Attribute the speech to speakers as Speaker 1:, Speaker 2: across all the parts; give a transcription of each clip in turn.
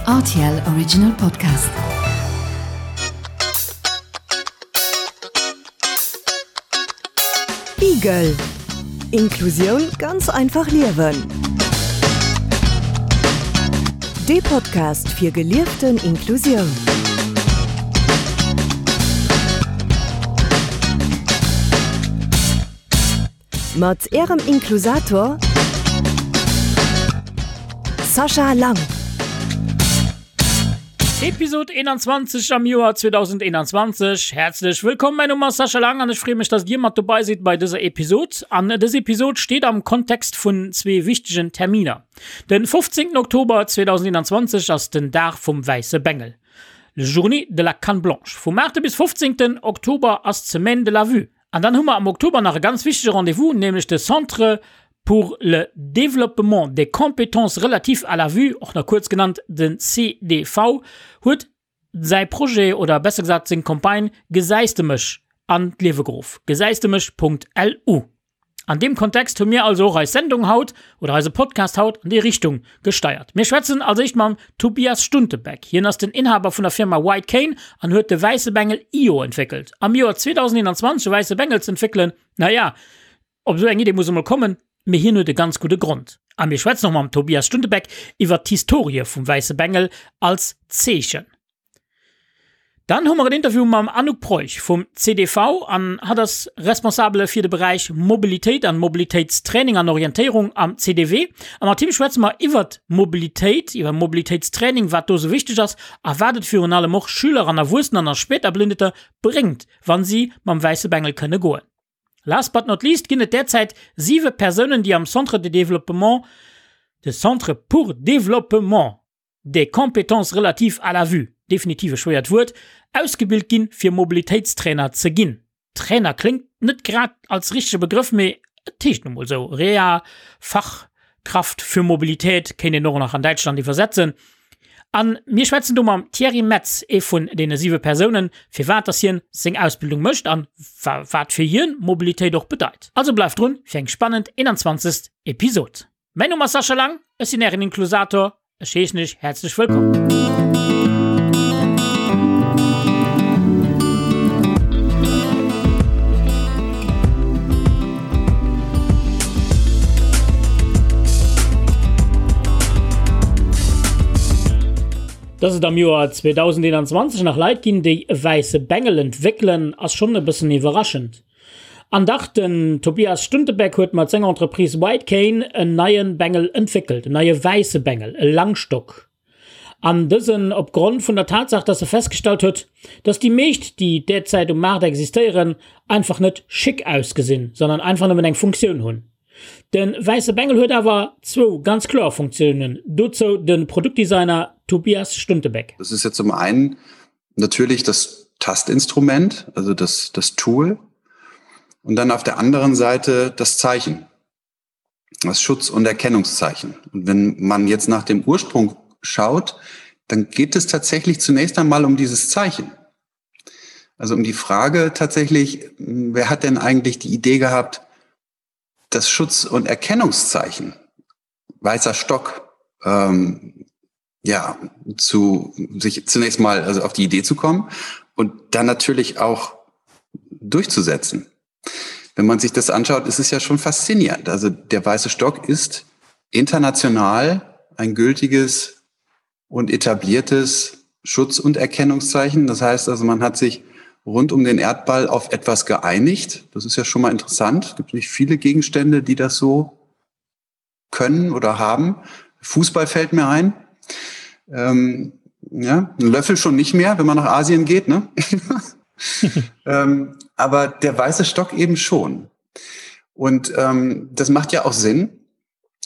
Speaker 1: Rtl Original Podcast.
Speaker 2: Igel Inklusioun ganz einfach liewen. Dee Podcast fir gelieften Inklusioun. Mat Ärem Inklusator Sascha Lang.
Speaker 3: Episod 21 am Joer 2021. Häerzlech wëllkomm, mäin Numm ass Sascha Lang an ech freeë mech, dass Dir mat dobei sidd bei dëser Episod. An dës Episod steet am Kontext vun zwee wichtegen Terminer. Den 15 Oktober 2021 ass den Dag vum wäisse Bengel, Journée de la Canne Blanche. Vum 8 bis 15 Oktober ass d'Semaine de la Vue. An dann hu mer am Oktober nach e ganz wichtege Rendez-vous, nämlech de Centre pour le développement des compétences relatives à la vue, och nach kuerz genannt den CDV, huet säi Projet oder besser gesat seng Campagne Gesäis de mech an d'Liewe geruff, gesäisdemech.lu. An deem Kontext hu mir also och eis Sendung haut oder eise Podcast haut an déi Richtung gesteiert. Mir schwätzen als éischt mam Tobias Stuntebeck. Hien ass den Inhaber vun der Firma White Cane an huet de wäisse Bengel Io entwéckelt. Am Joer 2021 e wäisse Bengel z'entwéckelen, naja, op esou eng Idee muss e mol kommen, mee hien huet e ganz gudde Grond. A mir schwätzen och mam Tobias Stuntebeck iwwert d'Historie vum wäisse Bengel als Zeechen. Dann hu mer en Interview mam Anouk Preuch vum CDV an hatt ass Responsabele fir de Beräich Mobilitéit an Mobilitéitstraining an Orientéierung am CDW. A mat him schwätze mer iwwert Mobilitéit, iwwer Mobilitéitstraining, wat do sou wichteg ass a wat et virun allem och Schüler an Erwuessener an Spéiterblindeter bréngt, wann si mam wäisse Bengel kënne goen. Last but not least ginn et derzäit siwe Persounen, déi am Centre de développement, de Centre pour développement des compétences relatives à la vue, definitiv e schwéiert Wuert, ausgebilt ginn, fir Mobilitéitstrainer ze ginn. Trainer kléngt net grad als richtege Begrëff, mee et heescht nu mol esou. Reha, Fachkraft für Mobilität kéint een och nach an Däitschland iwwersetzen. A mir schwätzen do mam Thierry Metz, ee vun deene siwe Persounen, firwat dass hien seng Ausbildung mécht an wat fir hien Mobilitéit och bedeit. Also bleift drun fir eng spannend 21. Episod. Mäin Numm ass Sascha Lang, ech sinn ären Inklusator. Ech heeschen iech häerzlech wëllkomm. Dass et am Joer 2021 nach Leit ginn, déi e wäisse Bengel entwéckelen, ass schonn e bëssen iwwerraschend. An dach, den Tobias Stuntebeck huet mat senger Entreprise White Cane en neie Bengel entwéckelt, en neie wäisse Bengel, e Langstock. An dësen op Grond vun der Tatsaach, dass e festgestallt huet, dass déi meescht, déi derzäit um Maart existéieren, einfach net schick ausgesinn, sondern einfach nëmmen eng Funktioun hunn. De wäisse Bengel huet awer zwou ganz kloer Funktiounen, dozou de Produktdesigner Tobias Stuntebeck.
Speaker 4: Das ist ja zum einen natürlich das Tastinstrument, also das, das Tool und dann auf der anderen Seite das Zeichen, das Schutz- und Erkennungszeichen. Und wenn man jetzt nach dem Ursprung schaut, dann geht es tatsächlich zunächst einmal um dieses Zeichen. Also um die Frage tatsächlich, wer hat denn eigentlich die Idee gehabt, das Schutz- und Erkennungszeichen, weißer Stock, ähm, ja, zu sich zunächst mal also auf die Idee zu kommen und dann natürlich auch durchzusetzen. Wenn man sich das anschaut, ist es ja schon faszinierend. Also der weiße Stock ist international ein gültiges und etabliertes Schutz- und Erkennungszeichen. Das heißt also, man hat sich rund um den Erdball auf etwas geeinigt. Das ist ja schon mal interessant. Es gibt nicht viele Gegenstände, die das so können oder haben. Fußball fällt mir ein. Ähm, ja, ein Löffel schon nicht mehr, wenn man nach Asien geht. Ne? ähm, aber der weiße Stock eben schon. Und ähm, das macht ja auch Sinn.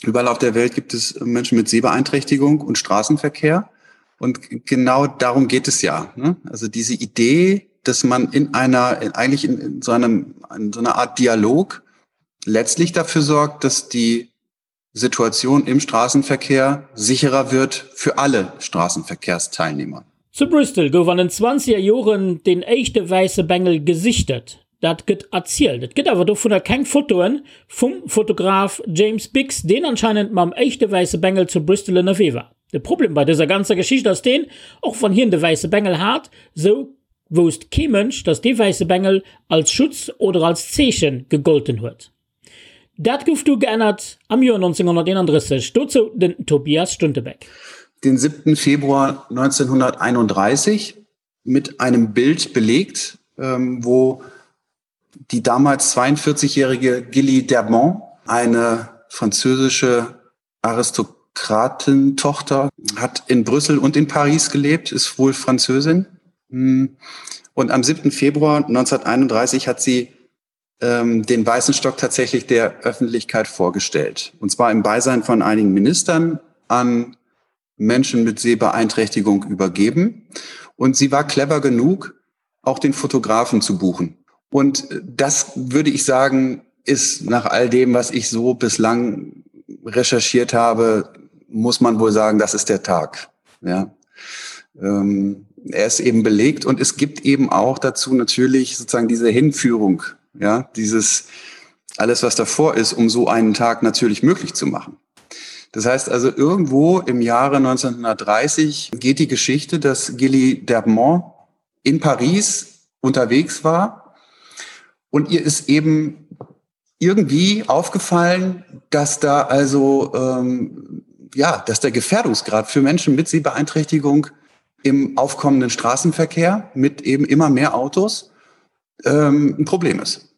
Speaker 4: Überall auf der Welt gibt es Menschen mit Sehbeeinträchtigung und Straßenverkehr. Und genau darum geht es ja. Ne? Also diese Idee, dass man in einer, in, eigentlich in, in so einem, in so einer Art Dialog letztlich dafür sorgt, dass die Situation im Straßenverkehr sicherer wird für alle Straßenverkehrsteilnehmer.
Speaker 3: Zu Bristol gouf an den zwanzeger Joren deen éischte wäisse Bengel gesichtet. Dat gëtt erzielt. Et gëtt awer dovunner keng Fotoen vum Fotograf James Biggs, deen anscheinend mam éischte wäisse Bengel zu Bristol ënnerwee war. De Problem bei dëser ganzer Geschicht ass deen, och wann hien de wäisse Bengel hat, sou wousst kee Mënsch, dass dee wäisse Bengel als Schutz oder als Zeeche gegolten huet. Dat gouf du geännert am Joer 1931. Dozou den Tobias Stuntebeck.
Speaker 4: Den 7. Februar 1931 mit einem Bild belegt, ähm, wo die damals 42-jährige Gilly Dermont, eine französische Aristokratentochter, hat in Brüssel und in Paris gelebt, ist wohl Französin. Hm. Und am 7. Februar 1931 hat sie ähm, den weißen Stock tatsächlich der Öffentlichkeit vorgestellt. Und zwar im Beisein von einigen Ministern an Menschen mit Sehbeeinträchtigung übergeben. Und sie war clever genug, auch den Fotografen zu buchen. Und das würde ich sagen, ist nach all dem, was ich so bislang recherchiert habe, muss man wohl sagen, das ist der Tag. Ja. Ähm, er ist eben belegt und es gibt eben auch dazu natürlich sozusagen diese Hinführung, ja, dieses alles, was davor ist, um so einen Tag natürlich möglich zu machen. Das heißt also irgendwo im Jahre 1930 geht die Geschichte, dass Gilly Dermont in Paris unterwegs war und ihr ist eben irgendwie aufgefallen, dass da also ähm, ja, dass der Gefährdungsgrad für Menschen mit Sehbeeinträchtigung im aufkommenden Straßenverkehr mit eben immer mehr Autos ähm, ein Problem ist.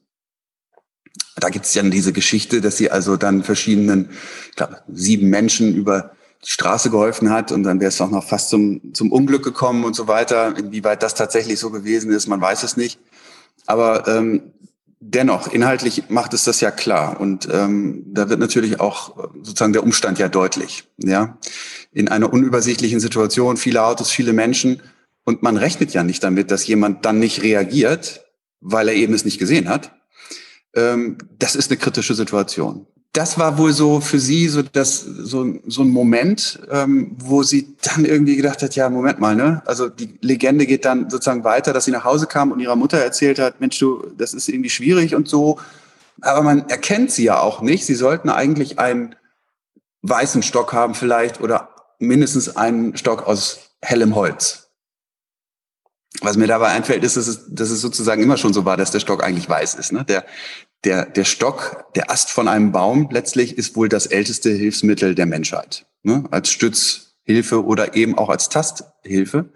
Speaker 4: Da gibt es dann diese Geschichte, dass sie also dann verschiedenen ich glaube, sieben Menschen über die Straße geholfen hat und dann wäre es auch noch fast zum, zum Unglück gekommen und so weiter. Inwieweit das tatsächlich so gewesen ist, man weiß es nicht. Aber ähm, dennoch, inhaltlich macht es das ja klar. Und ähm, da wird natürlich auch äh, sozusagen der Umstand ja deutlich. Ja? In einer unübersichtlichen Situation, viele Autos, viele Menschen. Und man rechnet ja nicht damit, dass jemand dann nicht reagiert, weil er eben es nicht gesehen hat. Ähm, das ist eine kritische Situation. Das war wohl so für sie so das so, so ein Moment, ähm, wo sie dann irgendwie gedacht hat, ja, Moment mal, ne? Also die Legende geht dann sozusagen weiter, dass sie nach Hause kam und ihrer Mutter erzählt hat, Mensch, du, das ist irgendwie schwierig und so. Aber man erkennt sie ja auch nicht. Sie sollten eigentlich einen weißen Stock haben vielleicht oder mindestens einen Stock aus hellem Holz. Was mir dabei einfällt, ist, dass es, dass es sozusagen immer schon so war, dass der Stock eigentlich weiß ist. Ne? Der, der, der Stock, der Ast von einem Baum letztlich ist wohl das älteste Hilfsmittel der Menschheit. Ne? Als Stützhilfe oder eben auch als Tasthilfe.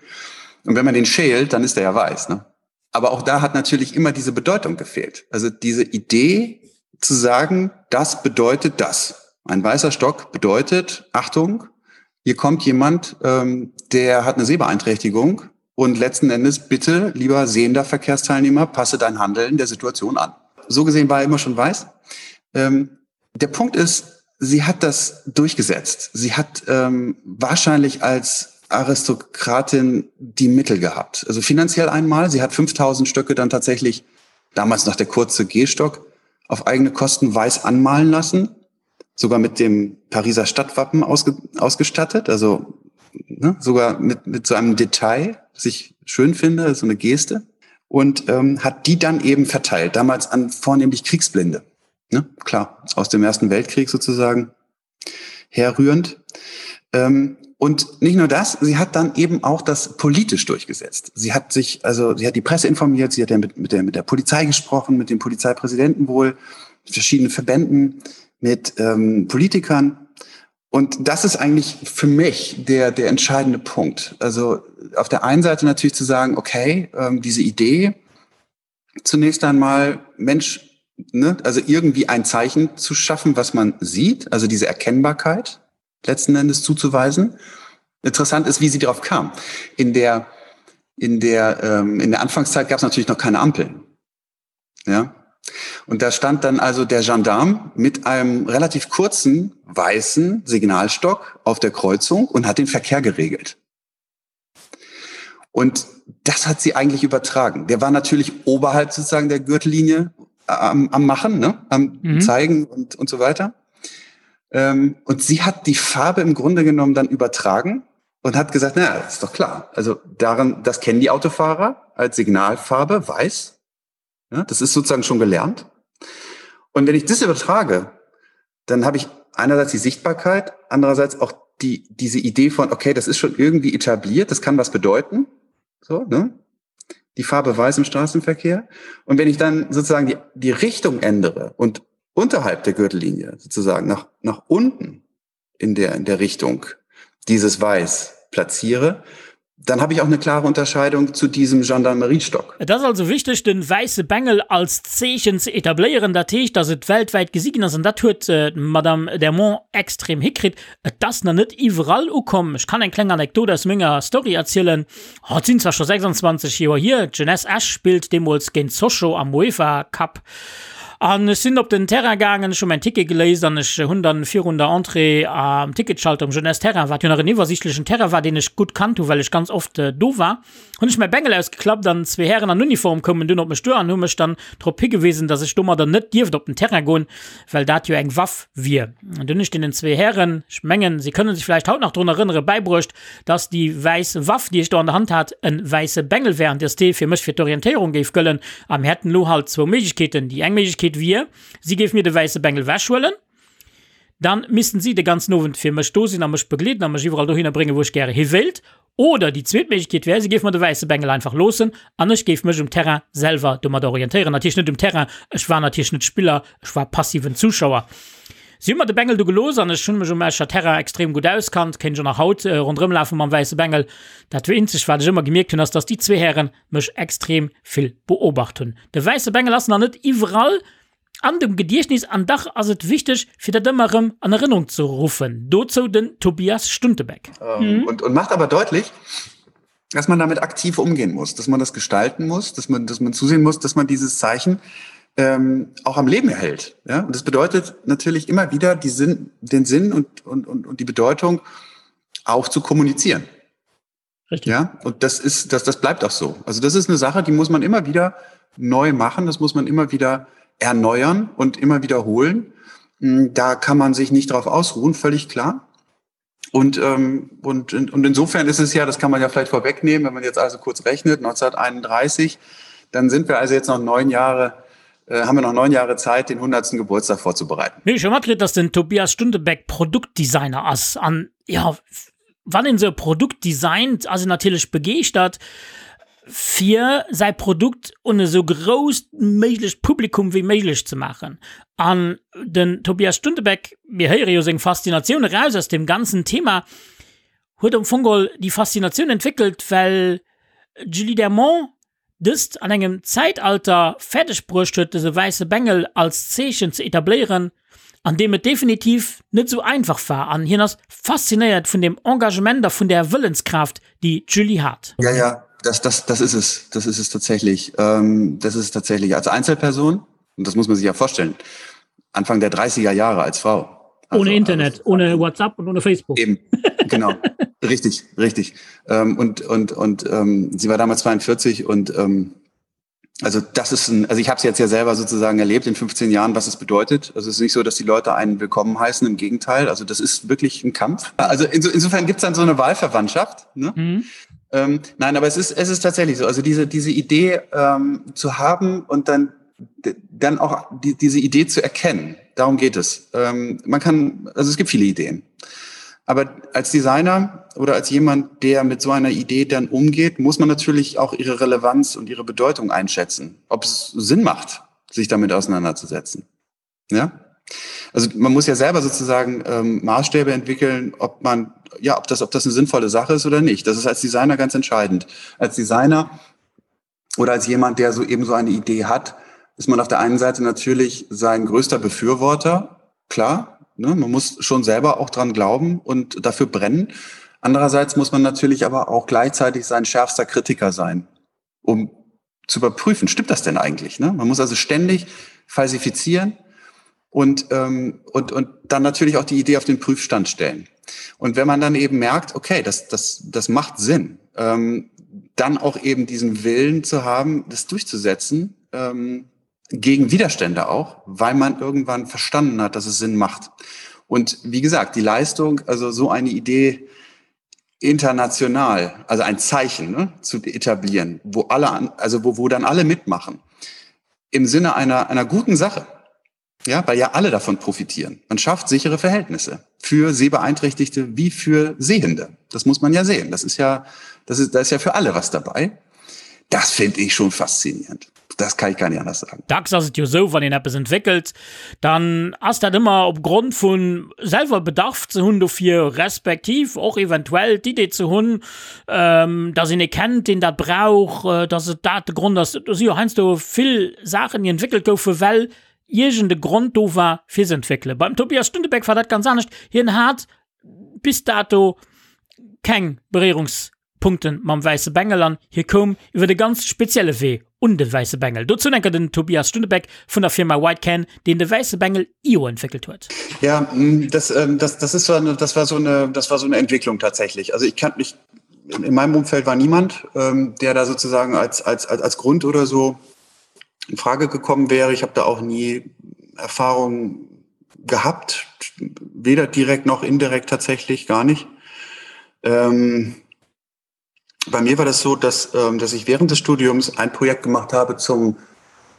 Speaker 4: Und wenn man den schält, dann ist der ja weiß. Ne? Aber auch da hat natürlich immer diese Bedeutung gefehlt. Also diese Idee zu sagen, das bedeutet das. Ein weißer Stock bedeutet, Achtung, hier kommt jemand, ähm, der hat eine Sehbeeinträchtigung und letzten Endes bitte, lieber sehender Verkehrsteilnehmer, passe dein Handeln der Situation an. So gesehen war er immer schon weiß. Ähm, der Punkt ist, sie hat das durchgesetzt. Sie hat ähm, wahrscheinlich als Aristokratin die Mittel gehabt. Also finanziell einmal, sie hat 5000 Stöcke dann tatsächlich, damals noch der kurze Gehstock, auf eigene Kosten weiß anmalen lassen, sogar mit dem Pariser Stadtwappen ausge ausgestattet, also ne, sogar mit, mit so einem Detail, das ich schön finde, so eine Geste und ähm, hat die dann eben verteilt, damals an vornehmlich Kriegsblinde. Ne? Klar, aus dem Ersten Weltkrieg sozusagen herrührend. Ähm, und nicht nur das, sie hat dann eben auch das politisch durchgesetzt. Sie hat sich, also sie hat die Presse informiert, sie hat ja mit, mit, der, mit der Polizei gesprochen, mit dem Polizeipräsidenten wohl, mit verschiedenen Verbänden, mit ähm, Politikern. Und das ist eigentlich für mich der, der entscheidende Punkt. Also auf der einen Seite natürlich zu sagen, okay, ähm, diese Idee, zunächst einmal, Mensch, ne, also irgendwie ein Zeichen zu schaffen, was man sieht, also diese Erkennbarkeit letzten Endes zuzuweisen. Interessant ist, wie sie darauf kam. In der, in der, ähm, in der Anfangszeit gab es natürlich noch keine Ampeln. Ja? Und da stand dann also der Gendarm mit einem relativ kurzen weißen Signalstock auf der Kreuzung und hat den Verkehr geregelt. Und das hat sie eigentlich übertragen. Der war natürlich oberhalb sozusagen der Gürtellinie am, am Machen, ne? am mhm. Zeigen und, und so weiter. Ähm, und sie hat die Farbe im Grunde genommen dann übertragen und hat gesagt, na, ist doch klar. Also daran, das kennen die Autofahrer als Signalfarbe, weiß. Ja, das ist sozusagen schon gelernt. Und wenn ich das übertrage, dann habe ich einerseits die Sichtbarkeit, andererseits auch die, diese Idee von, okay, das ist schon irgendwie etabliert, das kann was bedeuten. So, ne? Die Farbe weiß im Straßenverkehr. Und wenn ich dann sozusagen die, die Richtung ändere und unterhalb der Gürtellinie sozusagen nach, nach unten in der, in der Richtung dieses Weiß platziere, dann habe ich auch eine klare Unterscheidung zu diesem Gendarmeriestock.
Speaker 3: Et ass also wichteg, den wäisse Bengel als Zeechen ze etabléieren, dat heescht, dass et weltwäit gesi ginn ass, an dat huet d'Madame Dermont extrem hikritt. Et ass nach net iwwerall ukomm. Ech kann eng kleng Anekdot aus menger Story erzielen. Oh, et sinn zwar scho 26 Joer hier, d'Jeunesse Esch spillt deemools géint Sochaux am UEFA Cup. An ech sinn op den Terrain gaangen, ech hu mäin Ticket geléist an ech hunn dann virun der Entrée am Ticketschalter um Jeunesse Terrain, wat jo nach en iwwersiichtlechen Terrain war, deen ech gutt kannt hu well ech ganz oft do war, hunn ech mäi Bengel ausgeklappt an zwee Hären an Uniform koumen dunn op mech duer an hu mech dann drop higewisen, dass ech domadder net dierft op den Terrain goen, well dat jo eng Waff wier. An dunn hunn ech deenen zwee Hären, ech mengen, si kënnen sech vläicht haut nach drun erënneren, bäibruecht, dass déi wäiss Waff, déi ech do an der Hand hat, e wäisse Bengel wär an dass dee fir mech fir d'Orientéierung géif gëllen. A mir hätten elo halt zwou Méiglechkeeten. Déi eng Méiglechkeet wier, si géif mir de wäisse Bengel wechhuelen, dann missten si de ganzen Owend fir mech do sinn a mech begleeden a mech iwwerall dohinner bréngen, wou ech gäre hi wéilt. Oder déi zweet Méiglechkeet wär, si géif mer de wäisse Bengel einfach loossen an ech géif mech um Terrain selwer domadder orientéieren. Natierlech net um Terrain, ech war natierlech net Spiller, ech war passiven Zuschauer. Si hu mer de Bengel du gelooss an ech hunn mech um Escher Terrain extrem gutt auskannt, kéint ech och nach haut ronderëm lafe mam wäisse Bengel. Dat eenzegt wat ech ëmmer gemierkt hunn ass, dass déi zwee Häre mech extrem vill beobacht hunn. De wäisse Bengel ass nach net iwwerall an dem Gediechtnis an dach ass et wichteg fir dat ëmmer erëm an Erënnerung ze ruffen. Dozou den Tobias Stuntebeck.
Speaker 4: Und, und macht aber deutlich, dass man damit aktiv umgehen muss, dass man das gestalten muss, dass man, dass man zusehen muss, dass man dieses Zeichen ähm, auch am Leben erhält. Ja? Und das bedeutet natürlich immer wieder die Sinn, den Sinn und, und, und, und die Bedeutung auch zu kommunizieren. Richtig. Ja, und das ist, das, das bleibt auch so. Also das ist eine Sache, die muss man immer wieder neu machen, das muss man immer wieder erneuern und immer wiederholen. Hm, da kann man sich nicht drauf ausruhen, völlig klar. Und, ähm, und, und insofern ist es ja, das kann man ja vielleicht vorwegnehmen, wenn man jetzt also kurz rechnet, 1931, dann sind wir also jetzt noch neun Jahre, äh, haben wir noch neun Jahre Zeit, den 100. Geburtstag vorzubereiten.
Speaker 3: Mir schon matkritt, dass den Tobias Stundebeck Produktdesigner ass an ja wann een esou e Produkt designt, ass een natierlech begeeschtert, fir säi Produkt un esou grousst méiglecht Publikum wéi méiglech ze maachen. An den Tobias Stuntebeck, mir héiere jo seng Faszinatioun eraus aus deem ganzen Thema, huet am Fong geholl déi Faszinatioun entwéckelt, well d'Julie Dermont dëst an engem Zäitalter fäerdeg bruecht huet, dëse wäisse Bengel als Zeechen ze etabléieren, an deem et definitiv net esou einfach war. An hien ass faszinéiert vun dem Engagement a vun där Wëllenskraaft, déi d'Julie hat.
Speaker 4: Ja, ja, das, das, das ist es. Das ist es tatsächlich. Ähm, das ist es tatsächlich als Einzelperson. Und das muss man sich ja vorstellen. Anfang der 30er Jahre als Frau.
Speaker 3: Also, ohne Internet, also, ohne WhatsApp und ohne Facebook.
Speaker 4: Eben, genau. richtig, richtig. Ähm, und und, und ähm, sie war damals 42 und ähm, also das ist ein, also ich habe es jetzt ja selber sozusagen erlebt in 15 Jahren, was es bedeutet. Also es ist nicht so, dass die Leute einen willkommen heißen, im Gegenteil. Also das ist wirklich ein Kampf. Also inso, insofern gibt es dann so eine Wahlverwandtschaft. Ne? Mhm. Ähm, nein, aber es ist, es ist tatsächlich so. Also diese, diese Idee ähm, zu haben und dann dann auch die, diese Idee zu erkennen. Darum geht es. Ähm, man kann, also es gibt viele Ideen. Aber als Designer oder als jemand, der mit so einer Idee dann umgeht, muss man natürlich auch ihre Relevanz und ihre Bedeutung einschätzen, ob es Sinn macht, sich damit auseinanderzusetzen. Ja? Also man muss ja selber sozusagen ähm, Maßstäbe entwickeln, ob man, ja, ob das, ob das eine sinnvolle Sache ist oder nicht. Das ist als Designer ganz entscheidend. Als Designer oder als jemand, der so eben so eine Idee hat, ist man auf der einen Seite natürlich sein größter Befürworter, klar, ne, man muss schon selber auch dran glauben und dafür brennen. Andererseits muss man natürlich aber auch gleichzeitig sein schärfster Kritiker sein, um zu überprüfen, stimmt das denn eigentlich? Ne? Man muss also ständig falsifizieren und, ähm, und, und dann natürlich auch die Idee auf den Prüfstand stellen. Und wenn man dann eben merkt, okay, das, das, das macht Sinn, ähm, dann auch eben diesen Willen zu haben, das durchzusetzen, ähm, gegen Widerstände auch, weil man irgendwann verstanden hat, dass es Sinn macht. Und wie gesagt, die Leistung, also so eine Idee international, also ein Zeichen ne, zu etablieren, wo alle, also wo, wo dann alle mitmachen, im Sinne einer, einer guten Sache. Ja, weil ja alle davon profitieren. Man schafft sichere Verhältnisse für Sehbeeinträchtigte wie für Sehende. Das muss man ja sehen. Das ist ja, das ist, da ist ja für alle was dabei. Das finde ich schon faszinierend. Das kann ich gar nicht anders sagen.
Speaker 3: Dacks ass et jo esou, wann een eppes entwéckelt, dann ass dat ëmmer op Grond vu selwer Bedarf ze hunn dofir, respektiv och eventuell d'Idee ze hunn, dass een ee kennt, deen dat brauch, dass et dat de Grond ass. Do si jo heiansdo vill Saachen, déi entwéckelt goufen, well iergend e Grond do war, fir se entwéckelen. Beim Tobias Stuntebeck war dat ganz anescht. Hien hat bis dato keng Beréierungspunkte mam wäisse Bengel an hie koum iwwer e ganz spezielle Wee un de wäisse Bengel. Dozou enker den Tobias Stuntebeck vun der Firma White Can, deen de wäisse Bengel io entwéckelt huet.
Speaker 4: Ja, das, ähm, das, das, ist so eine, das, war so eine, das war so eine Entwicklung tatsächlich. Also ich kann mich, in meinem Umfeld war niemand, ähm, der da sozusagen als, als, als, als Grund oder so in Frage gekommen wäre. Ich habe da auch nie Erfahrungen gehabt, weder direkt noch indirekt tatsächlich gar nicht. Ähm, bei mir war das so, dass, ähm, dass ich während des Studiums ein Projekt gemacht habe zum,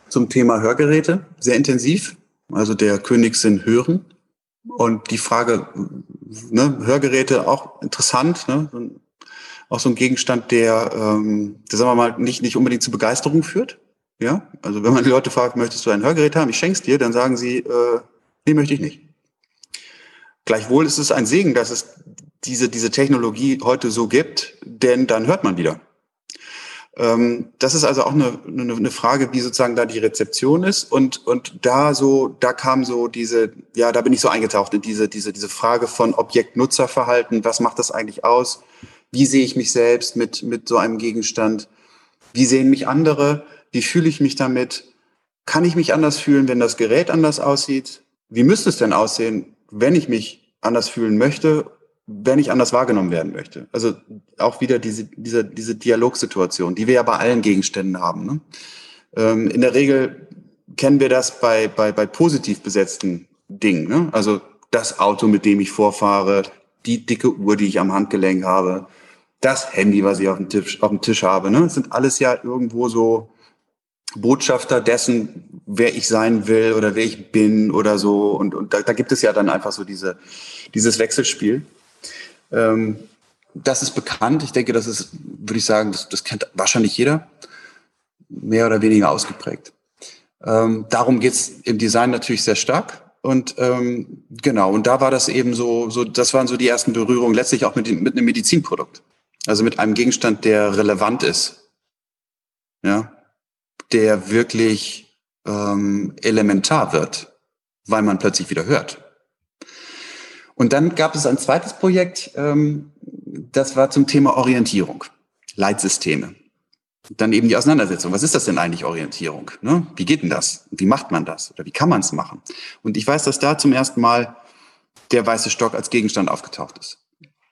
Speaker 4: zum Thema Hörgeräte, sehr intensiv, also der Königssinn hören. Und die Frage, ne, Hörgeräte auch interessant, ne? auch so ein Gegenstand, der, ähm, der sagen wir mal, nicht, nicht unbedingt zu Begeisterung führt. Ja, also wenn man die Leute fragt, möchtest du ein Hörgerät haben, ich schenk's dir, dann sagen sie, äh, nee, möchte ich nicht. Gleichwohl ist es ein Segen, dass es diese, diese Technologie heute so gibt, denn dann hört man wieder. Ähm, das ist also auch eine, eine, eine Frage, wie sozusagen da die Rezeption ist. Und, und da so, da kam so diese, ja, da bin ich so eingetaucht in diese, diese, diese Frage von Objektnutzerverhalten. Was macht das eigentlich aus? Wie sehe ich mich selbst mit, mit so einem Gegenstand? Wie sehen mich andere? Wie fühle ich mich damit? Kann ich mich anders fühlen, wenn das Gerät anders aussieht? Wie müsste es denn aussehen, wenn ich mich anders fühlen möchte, wenn ich anders wahrgenommen werden möchte? Also auch wieder diese, diese, diese Dialogsituation, die wir ja bei allen Gegenständen haben. Ne? Ähm, in der Regel kennen wir das bei, bei, bei positiv besetzten Dingen. Ne? Also das Auto, mit dem ich vorfahre, die dicke Uhr, die ich am Handgelenk habe, das Handy, was ich auf dem Tisch, auf dem Tisch habe. Ne? Das sind alles ja irgendwo so Botschafter dessen, wer ich sein will oder wer ich bin oder so. Und, und da, da gibt es ja dann einfach so diese, dieses Wechselspiel. Ähm, das ist bekannt. Ich denke, das ist, würde ich sagen, das, das kennt wahrscheinlich jeder, mehr oder weniger ausgeprägt. Ähm, darum geht's im Design natürlich sehr stark. Und ähm, genau, und da war das eben so, so, das waren so die ersten Berührungen, letztlich auch mit, mit einem Medizinprodukt. Also mit einem Gegenstand, der relevant ist. Ja, der wirklich ähm, elementar wird, weil man plötzlich wieder hört. Und dann gab es ein zweites Projekt, ähm, das war zum Thema Orientierung, Leitsysteme. Dann eben die Auseinandersetzung. Was ist das denn eigentlich Orientierung? Ne? Wie geht denn das? Wie macht man das? Oder wie kann man es machen? Und ich weiß, dass da zum ersten Mal der weiße Stock als Gegenstand aufgetaucht ist.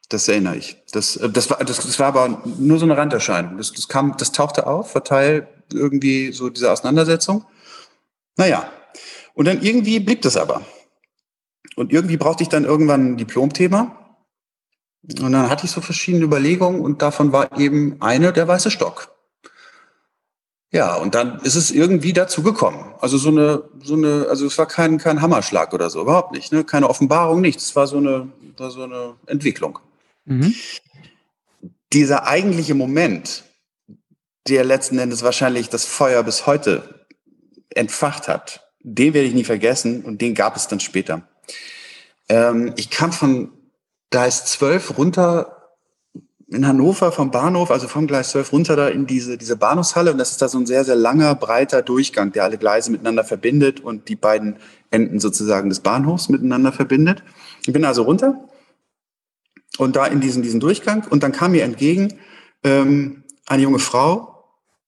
Speaker 4: Das erinnere ich. Das, äh, das, war, das, das war aber nur so eine Randerscheinung. Das, das, kam, das tauchte auf, war Teil irgendwie so dieser Auseinandersetzung. Naja, und dann irgendwie blieb das aber. Und irgendwie brauchte ich dann irgendwann ein Diplomthema. Und dann hatte ich so verschiedene Überlegungen und davon war eben eine der weiße Stock. Ja, und dann ist es irgendwie dazu gekommen. Also so eine, so eine, also es war kein, kein Hammerschlag oder so, überhaupt nicht. Ne? Keine Offenbarung, nichts. Es war so eine, war so eine Entwicklung. Mhm. Dieser eigentliche Moment, der letzten Endes wahrscheinlich das Feuer bis heute entfacht hat, den werde ich nie vergessen und den gab es dann später. Ähm, ich kam von Gleis 12 runter in Hannover vom Bahnhof, also vom Gleis 12 runter da in diese, diese Bahnhofshalle. Und das ist da so ein sehr, sehr langer, breiter Durchgang, der alle Gleise miteinander verbindet und die beiden Enden sozusagen des Bahnhofs miteinander verbindet. Ich bin also runter und da in diesen, diesen Durchgang. Und dann kam mir entgegen ähm, eine junge Frau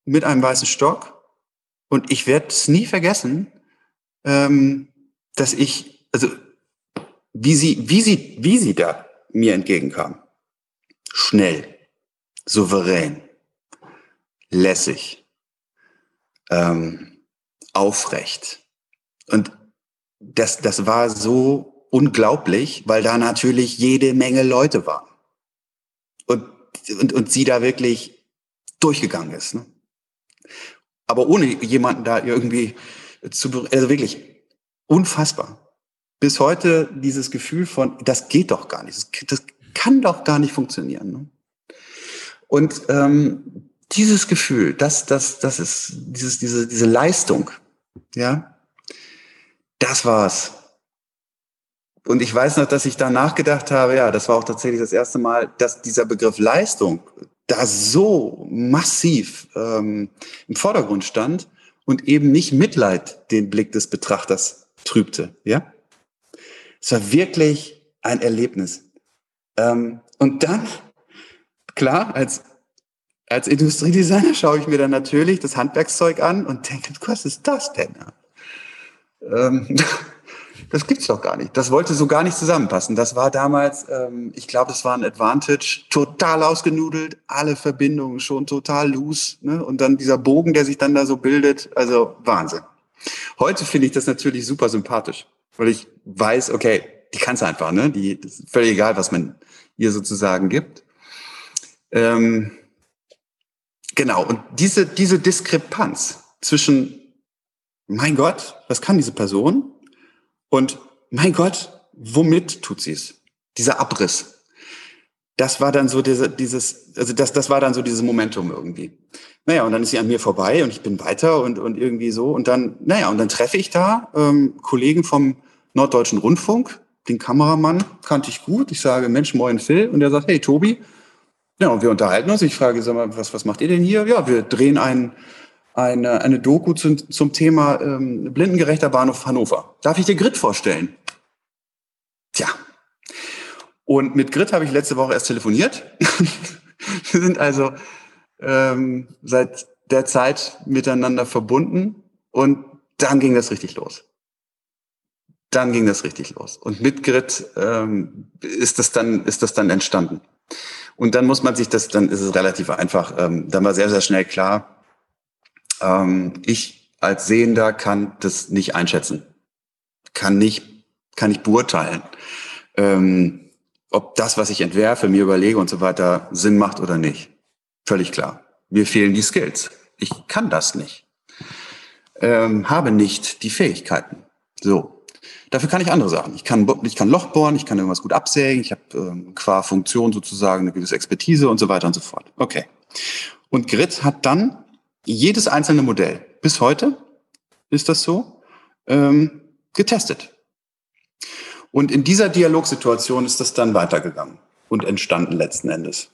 Speaker 4: mit einem weißen Stock. Und ich werde es nie vergessen, ähm, dass ich, also wie sie, wie sie, wie sie da mir entgegenkam. Schnell, souverän, lässig, ähm, aufrecht. Und das, das war so unglaublich, weil da natürlich jede Menge Leute waren. Und, und, und sie da wirklich durchgegangen ist. Ne? Aber ohne jemanden da irgendwie zu, also wirklich. Unfassbar. Bis heute dieses Gefühl von, das geht doch gar nicht, das, das kann doch gar nicht funktionieren. Ne? Und ähm, dieses Gefühl, das, das, das ist dieses, diese, diese Leistung, ja, das war's. Und ich weiß noch, dass ich danach gedacht habe, ja, das war auch tatsächlich das erste Mal, dass dieser Begriff Leistung da so massiv ähm, im Vordergrund stand und eben nicht Mitleid den Blick des Betrachters trübte. Ja, es war wirklich ein Erlebnis. Ähm, und dann, klar, als, als Industriedesigner schaue ich mir dann natürlich das Handwerkszeug an und denke, was ist das denn? Ähm, das gibt's doch gar nicht. Das wollte so gar nicht zusammenpassen. Das war damals, ähm, ich glaube, es war ein Advantage, total ausgenudelt, alle Verbindungen schon total loose. Ne? Und dann dieser Bogen, der sich dann da so bildet, also Wahnsinn. Heute finde ich das natürlich super sympathisch, weil ich weiß, okay, die kann's einfach, ne? Die das ist völlig egal, was man ihr sozusagen gibt. Ähm, genau, und diese, diese Diskrepanz zwischen mein Gott, was kann diese Person? Und mein Gott, womit tut sie es? Dieser Abriss. Das war dann so diese, dieses, also das, das war dann so dieses Momentum irgendwie. Naja, und dann ist sie an mir vorbei und ich bin weiter und, und irgendwie so. Und dann, naja, und dann treffe ich da ähm, Kollegen vom Norddeutschen Rundfunk, den Kameramann kannte ich gut. Ich sage, Mensch, moin Phil. Und er sagt, hey Tobi. Ja, und wir unterhalten uns. Ich frage, sag mal, was, was macht ihr denn hier? Ja, wir drehen einen eine, eine Doku zum, zum Thema ähm, blindengerechter Bahnhof Hannover. Darf ich dir Grit vorstellen? Tja. Und mit Grit habe ich letzte Woche erst telefoniert. Wir sind also ähm, seit der Zeit miteinander verbunden und dann ging das richtig los. Dann ging das richtig los. Und mit Grit ähm, ist das dann, ist das dann entstanden. Und dann muss man sich das, dann ist es relativ einfach, ähm, dann war sehr, sehr schnell klar, ähm, ich als Sehender kann das nicht einschätzen, kann nicht, kann nicht beurteilen, ähm, ob das, was ich entwerfe, mir überlege und so weiter, Sinn macht oder nicht. Völlig klar. Mir fehlen die Skills. Ich kann das nicht. Ähm, habe nicht die Fähigkeiten. So. Dafür kann ich andere Sachen. Ich kann, ich kann Loch bohren, ich kann irgendwas gut absägen, ich habe ähm, qua Funktion sozusagen eine gewisse Expertise und so weiter und so fort. Okay. Und Grit hat dann jedes einzelne Modell bis heute ist das so ähm, getestet. Und in dieser Dialogsituation ist das dann weitergegangen und entstanden letzten Endes.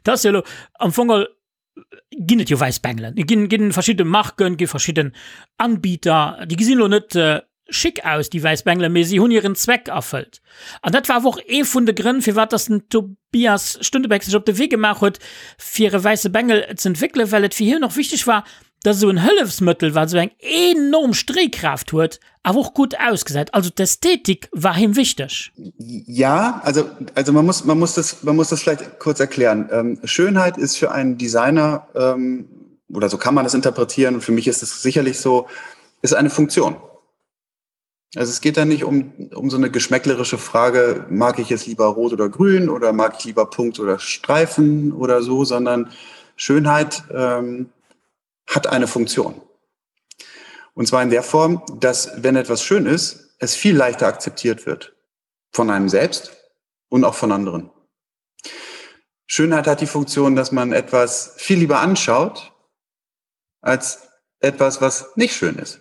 Speaker 3: Das ja am Fongel ginn et jo wäiss Bengelen. Ginn ginn verschidde Marken, gi verschidden Anbieter, déi gesinn lo net äh, schick aus, déi wäiss Bengelen, mee si hunn hiren Zweck erfëllt. An dat war awer och ee vun de Grënn, firwat dass den Tobias Stuntebeck sech op de Wee gemaach huet, fir e wäisse Bengel z'entwéckelen, well et fir hien och wichteg war, dass esou en Hëllefsmëttel, wat esou eng enorm Stréikraaft huet, awer och gutt ausgesäit. Also d'Ästhetik war him wichteg.
Speaker 4: Ja, also, also man muss, man muss das, man muss das vielleicht kurz erklären. Ähm, Schönheit ist für einen Designer, ähm, oder so kann man das interpretieren, und für mich ist es sicherlich so, ist eine Funktion. Also es geht da nicht um, um so eine geschmäcklerische Frage, mag ich es lieber rot oder grün oder mag ich lieber Punkt oder Streifen oder so, sondern Schönheit ähm, hat eine Funktion. Und zwar in der Form, dass wenn etwas schön ist, es viel leichter akzeptiert wird von einem selbst und auch von anderen. Schönheit hat die Funktion, dass man etwas viel lieber anschaut als etwas, was nicht schön ist.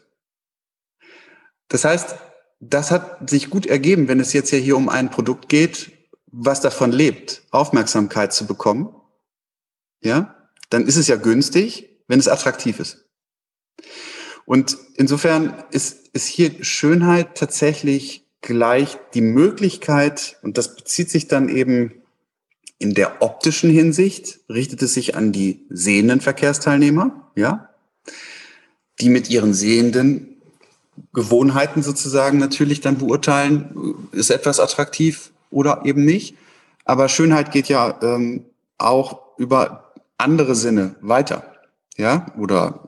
Speaker 4: Das heißt, das hat sich gut ergeben, wenn es jetzt ja hier um ein Produkt geht, was davon lebt, Aufmerksamkeit zu bekommen. Ja, dann ist es ja günstig, wenn es attraktiv ist. Und insofern ist, ist hier Schönheit tatsächlich gleich die Möglichkeit, und das bezieht sich dann eben in der optischen Hinsicht, richtet es sich an die sehenden Verkehrsteilnehmer, ja, die mit ihren sehenden Gewohnheiten sozusagen natürlich dann beurteilen, ist etwas attraktiv oder eben nicht. Aber Schönheit geht ja ähm, auch über andere Sinne weiter. Ja, oder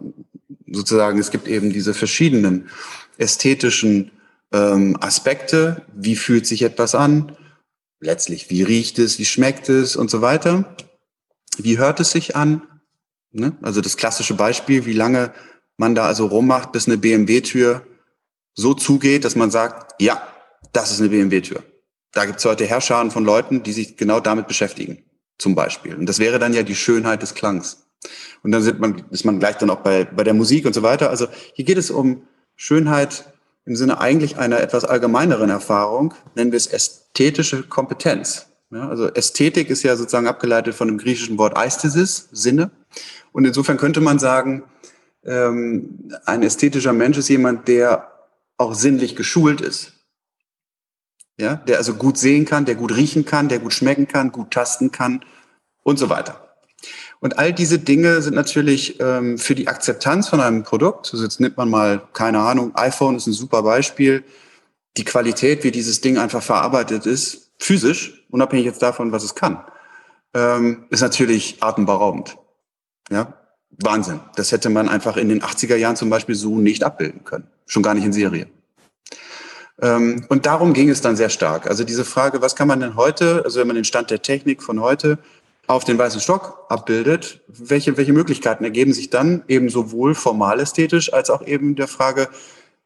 Speaker 4: sozusagen, es gibt eben diese verschiedenen ästhetischen ähm, Aspekte. Wie fühlt sich etwas an? Letztlich, wie riecht es, wie schmeckt es und so weiter? Wie hört es sich an? Ne? Also das klassische Beispiel, wie lange man da also rummacht, bis eine BMW-Tür. so zugeht, dass man sagt, ja, das ist eine BMW-Tür. Da gibt es heute Herrscharen von Leuten, die sich genau damit beschäftigen, zum Beispiel. Und das wäre dann ja die Schönheit des Klangs. Und dann sind man, ist man gleich dann auch bei, bei der Musik und so weiter. Also hier geht es um Schönheit im Sinne eigentlich einer etwas allgemeineren Erfahrung, nennen wir es ästhetische Kompetenz. Ja, also Ästhetik ist ja sozusagen abgeleitet von dem griechischen Wort Aesthesis, Sinne. Und insofern könnte man sagen, ähm, ein ästhetischer Mensch ist jemand, der auch sinnlich geschult ist. Ja, der also gut sehen kann, der gut riechen kann, der gut schmecken kann, gut tasten kann und so weiter. Und all diese Dinge sind natürlich ähm, für die Akzeptanz von einem Produkt, also jetzt nimmt man mal, keine Ahnung, iPhone ist ein super Beispiel, die Qualität, wie dieses Ding einfach verarbeitet ist, physisch, unabhängig jetzt davon, was es kann, ähm, ist natürlich atemberaubend. Ja, Wahnsinn. Das hätte man einfach in den 80er Jahren zum Beispiel so nicht abbilden können. Schon gar nicht in Serie. Ähm, und darum ging es dann sehr stark. Also diese Frage, was kann man denn heute, also wenn man den Stand der Technik von heute auf den weißen Stock abbildet, welche, welche Möglichkeiten ergeben sich dann eben sowohl formal ästhetisch als auch eben der Frage,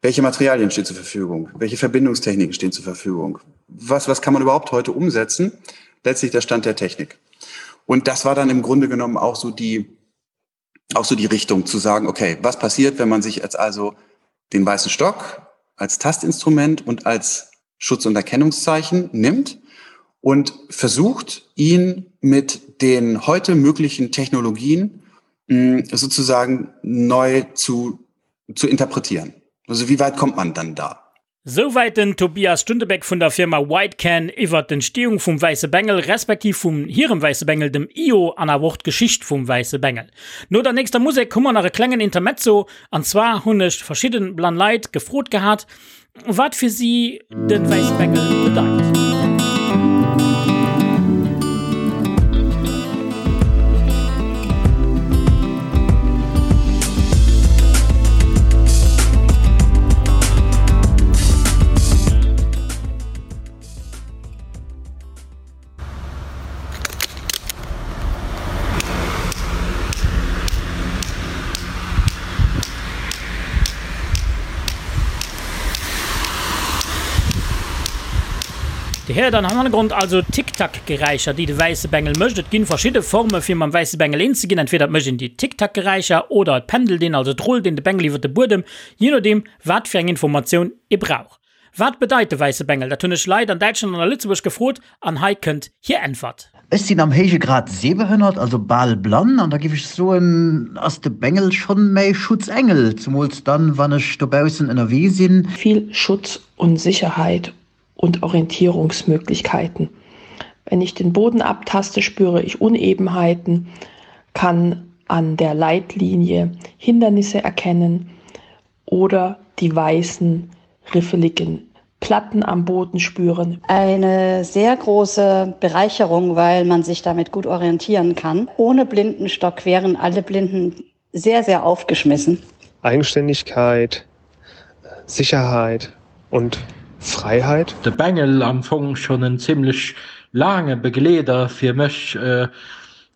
Speaker 4: welche Materialien stehen zur Verfügung, welche Verbindungstechniken stehen zur Verfügung, was, was kann man überhaupt heute umsetzen, letztlich der Stand der Technik. Und das war dann im Grunde genommen auch so die, auch so die Richtung zu sagen, okay, was passiert, wenn man sich jetzt also den weißen Stock als Tastinstrument und als Schutz- und Erkennungszeichen nimmt und versucht, ihn mit den heute möglichen Technologien hm, sozusagen neu zu, zu interpretieren. Also wie weit kommt man dann da?
Speaker 3: Souwäit den Tobias Stuntebeck vun der Firma Whitecan iwwert d'Entstehung vum wäisse Bengel, respektiv vum hirem wäisse Bengel, dem Io, an awer och d'Geschicht vum wäisse Bengel. No der nächster Musek hu mer nach e klengen Intermezzo, an zwar hunn ech verschidden blann Leit gefrot gehat, wat fir si de wäisse Bengel bedeit. Dir héiert am Hannergrond also Tick-Tack-Geräischer, déi de wäisse Bengel mécht. Et ginn verschidde Forme fir mam wäisse Bengel eens ze ginn. Entweder et mécht een déi Tick-Tack-Geräischer oder et pendelt een, also et rullt een de Bengel iwwer de Buedem, jee nodeem wat fir eng Informatioun ee brauch. Wat bedeit de wäisse Bengel? Dat hunn ech Leit an Däitschland an a Lëtzebuerg gefrot an hei kënnt hir Äntwert.
Speaker 5: Ech sinn am héije Grad sehbehënnert, also bal blann, an da giff ech soen, ass de Bengel schonn mäi Schutzengel, zumools dann, wann ech dobaussen ënnerwee sinn.
Speaker 6: Vill Schutz und Sicherheit und Orientierungsmöglichkeiten. Wenn ich den Boden abtaste, spüre ich Unebenheiten, kann an der Leitlinie Hindernisse erkennen oder die weißen riffeligen Platten am Boden spüren.
Speaker 7: Eine sehr große Bereicherung, weil man sich damit gut orientieren kann. Ohne Blindenstock wären alle Blinden sehr, sehr aufgeschmissen.
Speaker 8: Eigenständigkeit, Sicherheit und Freiheit.
Speaker 9: De Bengel am Fong schonn en zimmlech laange Begleeder fir mech.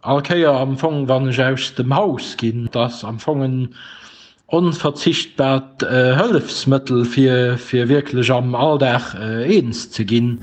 Speaker 9: All Kéier am Fong wann ech aus dem Haus ginn. Et ass am Fong en onverzichtbart Hëllefsmëttel fir fir wierklech am Alldag eens ze ginn.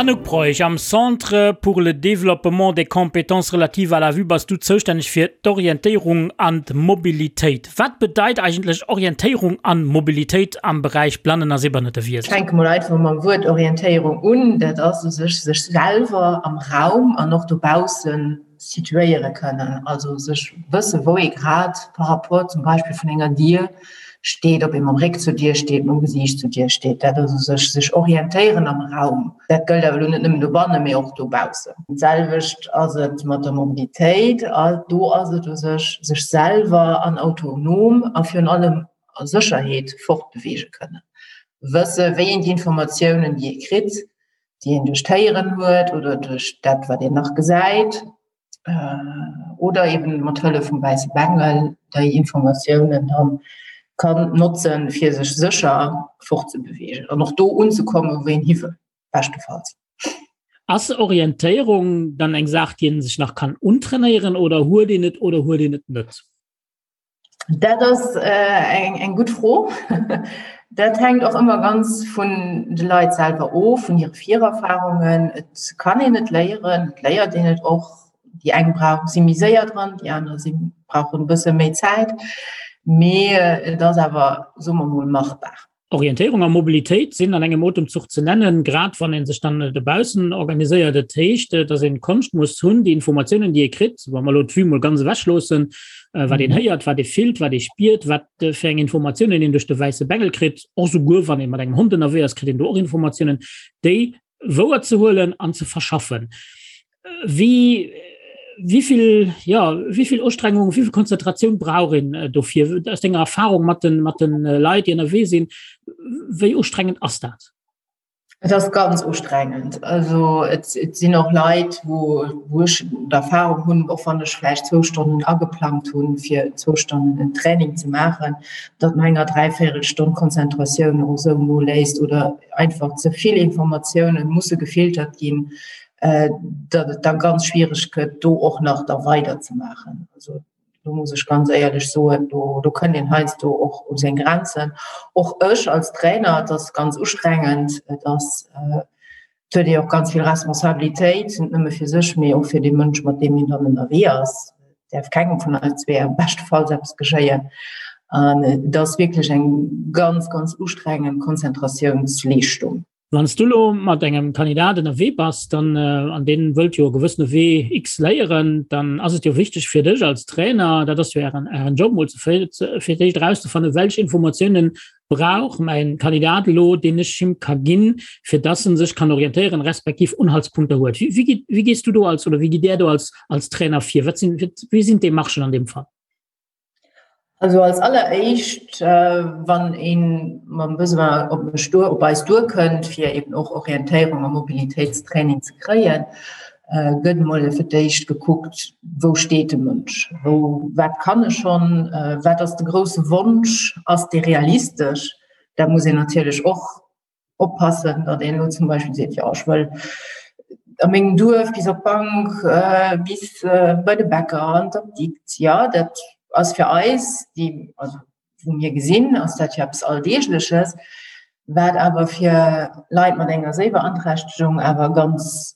Speaker 3: Anouk Broich, am Centre pour le développement des compétences relatives à la vue bass du zoustänneg fir d'Orientéierung an d'Mobilitéit. Wat bedeit eigentlech Orientéierung an Mobilitéit am Beräich Blannen a Sehbehënnertewiesen?
Speaker 10: Ech fänke mol einfach mam Wuert Orientéierung un. Dat ass u sech sech selwer am Raum an och dobausse situéiere kënnen, also sech wësse wou ee grad par rapport zum Beispill vun enger Dier steet, ob ee mam Réck zur Dier steet, mam Gesiicht zur Dier steet. Dat ass u sech sech orientéieren am Raum. Dat gëllt awer elo net nëmmen dobannen, mee och dobaussen. D'selwecht ass et mat der Mobilitéit. Do ass et u sech, sech selwer an autonom a virun allem a Sécherheet fortbeweege kënnen. Wësse wéi een déi Informatiounen, déi ee kritt, déi een duerch d'Héieren huet oder duerch dat, wat een nach gesäit. Oder eben mat Hëllef vum wäisse Bengel déi Informatiounen dann kann notzen, fir sech sécher fortzebewegen an och do unzekommen, wou een hi wëll, beschtefalls.
Speaker 3: Ass Orientéierung dann eng Saach, déi een sech nach kann untrainéieren oder huet een et oder huet een et net?
Speaker 10: Dat ass eng eng gutt Fro. Dat hänkt och ëmmer ganz vun de Leit selwer of, vun hire Virerfarungen. Et kann een et léieren, et léiert een et och. Déi eng brauchen, si méi séier dran, déi aner si brauchen e bësse méi Zäit. Mee et ass awer, soe mer mol, machbar.
Speaker 3: Orientéierung a Mobilitéit sinn an engem Otemzuch ze nennen, grad wann ee sech dann dobaussen organiséiert. Et heescht, datt een d'Konscht muss hunn, déi Informatiounen, déi ee kritt, wa mer elo d'Vue mol ganz ewech loossen, wat een héiert, wat ee fillt, wat ee spiert, wat fir eng Informatiounen een duerch de wäisse Bengel kritt, och souguer wann ee mat engem Hond ënnerwee ass, kritt een do och Informatiounen, déi wouer ze huelen an ze verschaffen. Wéi wéi vill ja wéi vill Ustrengung, wéi vill Konzentratioun brauch een äh, dofir aus denger Erfahrung mat den mat den äh, Leit, déi ënnerwee sinn, wéi ustrengend ass dat?
Speaker 10: Et ass ganz ustrengend. Also et, et sinn och Leit, wou, wou ech d'Erfahrung hunn, och wann ech vläicht zwou Stonnen ageplangt hunn, fir zwou Stonnen en Training ze maachen, datt no enger Dräivéierelstonn d'Konzentratioun och esou noléisst oder einfach ze vill Informatiounen musse gefiltert ginn, datt et da ganz schwiereg gëtt, do och nach da weider ze maachen. Also do muss ech ganz éierlech soen, do, do kënnt een heiansdo och u seng Grenzen. Och ech als Trainer, et ass ganz ustrengend, et ass, et huet ee och ganz vill Responsabilitéit, net nëmme fir sech, mee och fir dee Mënsch, mat deem een dann ënnerwee ass. Et däerf kengem vun eis zwee am beschtefalls eppes geschéien. An et ass wierklech eng ganz, ganz ustrengend Konzentratiounsleeschtung.
Speaker 3: Wann s du elo mat engem Kandidat ënnerwee bass, dann, an deen wëllt jo e gewëssene Wee X léieren, dann ass et jo wichteg fir dech als Trainer, dat ass jo ären, ären Job, mol ze fir d'éischt erauszefannen, welch Informatiounen brauch mäin Kandidat elo, deen ech him ka ginn, fir dass en sech kann orientéieren, respektiv Unhaltspunkter huet. Wéi, wéi gitt, wéi gees du do als, oder wéi gitt där do als, als Trainer vir? Wat sinn, wéi sinn d'Demarchen an deem Fall?
Speaker 10: Also als alleréischt, wann ee mam Besoin op mech duer, op eis duerkënnt, fir eben och Orientéierung a Mobilitéitstraining ze kréien, gëtt emol fir d'éischt gekuckt, wou steet de Mënsch, wou, wat kann e schonn, wat ass de grousse Wonsch, ass dee realistesch? Da muss een natierlech och oppassen, datt een elo zum Beispill seet, jo ech wëll a mengem Duerf bis op d'Bank, bis bei de Bäcker an d'Apdikt. Jo, dat ass fir eis, déi, also wou mir gesinn, ass dat jo eppes Alldeegleches, wat awer fir Leit mat enger Séibeanträchtegung awer ganz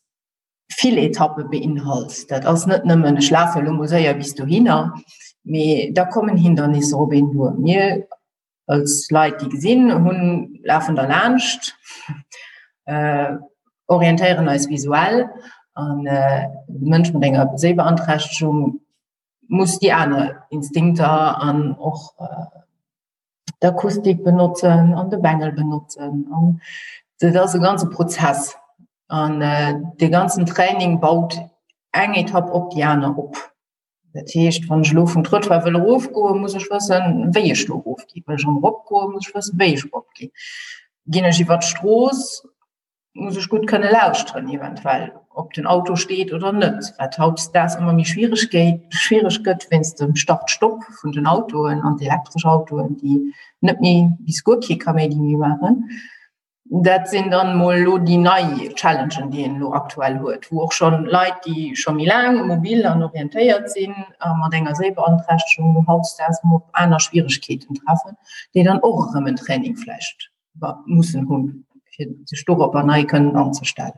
Speaker 10: vill Etappe beinhalt. Dat ass net nëmmen, ech lafe elo mol séier bis dohinner, mee da kommen Hindernisser op een duer. Mir als Leit, déi gesinn hunn, lafen der laanscht, äh, orientéieren eis visuell an äh, de Mënsch mat enger Séibeanträchtegung muss déi aner Instinkter an och äh, d'Akustik benotzen an de Bengel benotzen an dat ass e ganze Prozess an äh, de ganzen Training baut eng Etapp op déi aner op. Dat heescht, wann ech elo vum Trottoir wëll erofgoen, muss ech wëssen, wéi ech do erofginn. Wëll ech erëm eropgoen, muss ech wëssen, wéi ech eropginn. Ginn ech iwwer d'Strooss, muss ech gutt kënne lauschteren, eventuell, ob den Auto steet oder net, wat hautdesdaags ëmmer méi schwiereg gétt, schwiereg gëtt wéinst dem Start-Stopp vun den Autoen an d'elektresch Autoen, déi net méi bis guer kee Kaméidi méi maachen. Dat sinn dann mol elo déi nei Challengen, déi een elo aktuell huet, wou och schonn Leit, déi scho méi laang mobil an orientéiert sinn a mat enger Séibeanträchtegung hautdesdaags emol op aner Schwieregkeeten treffen, déi dann och erëm en Training vläicht mussen hunn, fir sech doropper nei kënnen anzestellen.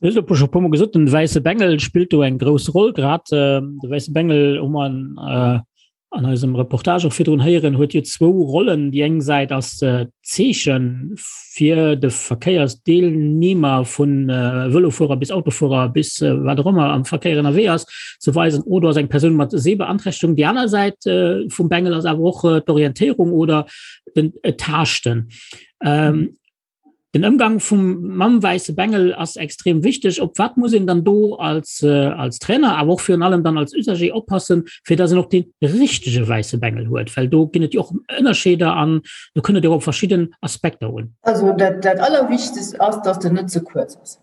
Speaker 3: Du hues elo scho e puermol gesot, den wäisse Bengel spillt do eng grouss Roll. Grad de wäisse Bengel hu mer an eisem Reportage och virdrun héieren, huet jo zwou Rollen. Déi eng Säit ass d'Zeeche fir de Verkéiersdeelnehmer vu Vëlofuerer bis Autofuerer bis wat och ëmmer am Verkéier ënnerwee ass, ze weisen, oh do ass eng Persoun mat Sehbeanträchtegung. Déi aner Säit vum Bengel ass awer och d'Orientéierung oder den Taaschten. Den Ëmgang vum mam wäisse Bengel ass extrem wichteg. Op wat muss een dann do als, äh, als Trainer, awer och virun allem dann als Usager oppassen, fir dass en och dee richtege wäisse Bengel huet? Well do ginn et jo och Ënnerscheeder an do kënnt et jo op verschidden Aspekter un.
Speaker 10: Also dat, dat Allerwichtegst ass, dass den net ze kuerz ass.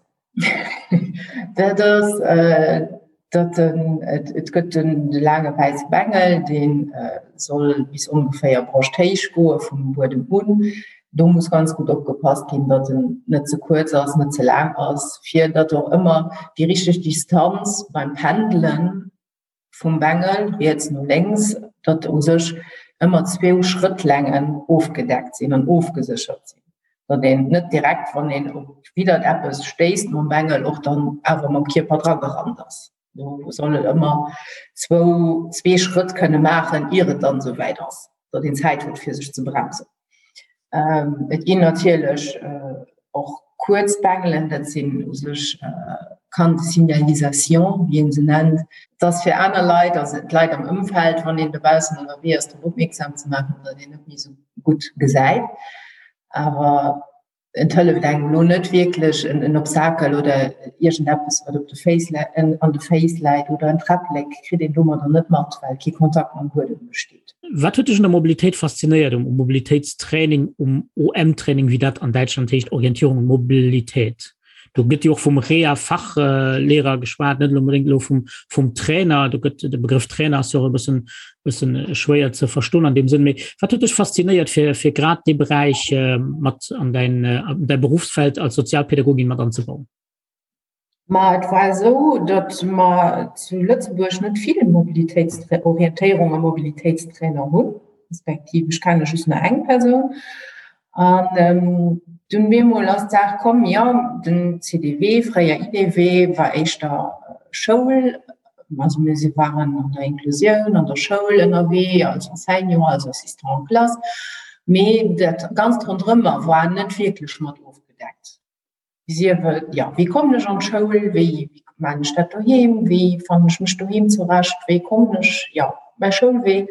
Speaker 10: Dat ass äh, Datt en, et gëtt den de laange wäisse Bengel, dee soll bis ongeféier broschthéich goe vum Buedem un. Do muss ganz gutt opgepasst ginn, datt en net ze kuerz ass, net ze laang ass, fir datt och ëmmer déi richteg Distanz beim Pendelen vum Bengel riets no lénks, datt u sech ëmmer zwou Schrëttlängen ofgedeckt sinn an ofgeséchert sinn, datt een net direkt, wann een op widdert eppes stéisst mam Bengel, och dann awer mam Kierper dragerannt ass. Do soll et ëmmer zwou, zwee Schrëtt kënne maachen, ier et dann esou wäit ass, datt een Zäit huet, fir sech ze bremsen. Et ginn natierlech och kuerz Bengelen, dat sinn u sech Cannes de signalisation, wéi ee se nennt. Et ass fir aner Leit, also d'Leit am Ëmfeld, wann een dobaussen ënnerwee ass, drop opmierksam ze maachen, datt een net méi esou gutt gesäit. Awer Et hëlleft engem elo net wierklech en Obstakel oder iergendeppes, wat op de Féiss an de Féiss läit oder en Träpplek kritt een domadder net mat, well kee Kontakt mam Buedem besteet.
Speaker 3: Wat huet dech un der Mobilitéit faszinéiert, um Mobilitéitstraining, um OM-Training, wéi dat an Däitschland heescht, Orientierung und Mobilität? Do gëtt jo och vum Rea-Fachlehrer geschwat, net onbedéngt elo vum, vum Trainer. Do gëtt de Begrëff Trainer ass jo och e bëssen, bëssen schwéier ze verstoen an deem Sënn. Mee wat huet dech faszinéiert, fir, fir grad dee Beräich mat an däin, an däi Berufsfeld als Sozialpädagogin mat anzebauen?
Speaker 10: Ma et war esou, datt mer zu Lëtzebuerg net vill Mobilitéitsorientéierung a Mobilitéitstrainer hunn, respektiv ech kenne just nach eng Persoun. An dunn bemol ass d'Saach komm, jo, den CDW, fréier IDW, war éischter Schoul, also mir si waren an der Inklusioun, an der Schoul ënnerwee, als Enseignant, als Assistant en classe, mee dat Ganzt ronderëmmer war net wierklech mat ofgedeckt. Sief et, jo, wéi kommen ech an d'Schoul, wéi maachen ech dat doheem, wéi fannen ech mech doheem zurecht, wéi kommen ech, jo, mäi Schoulwee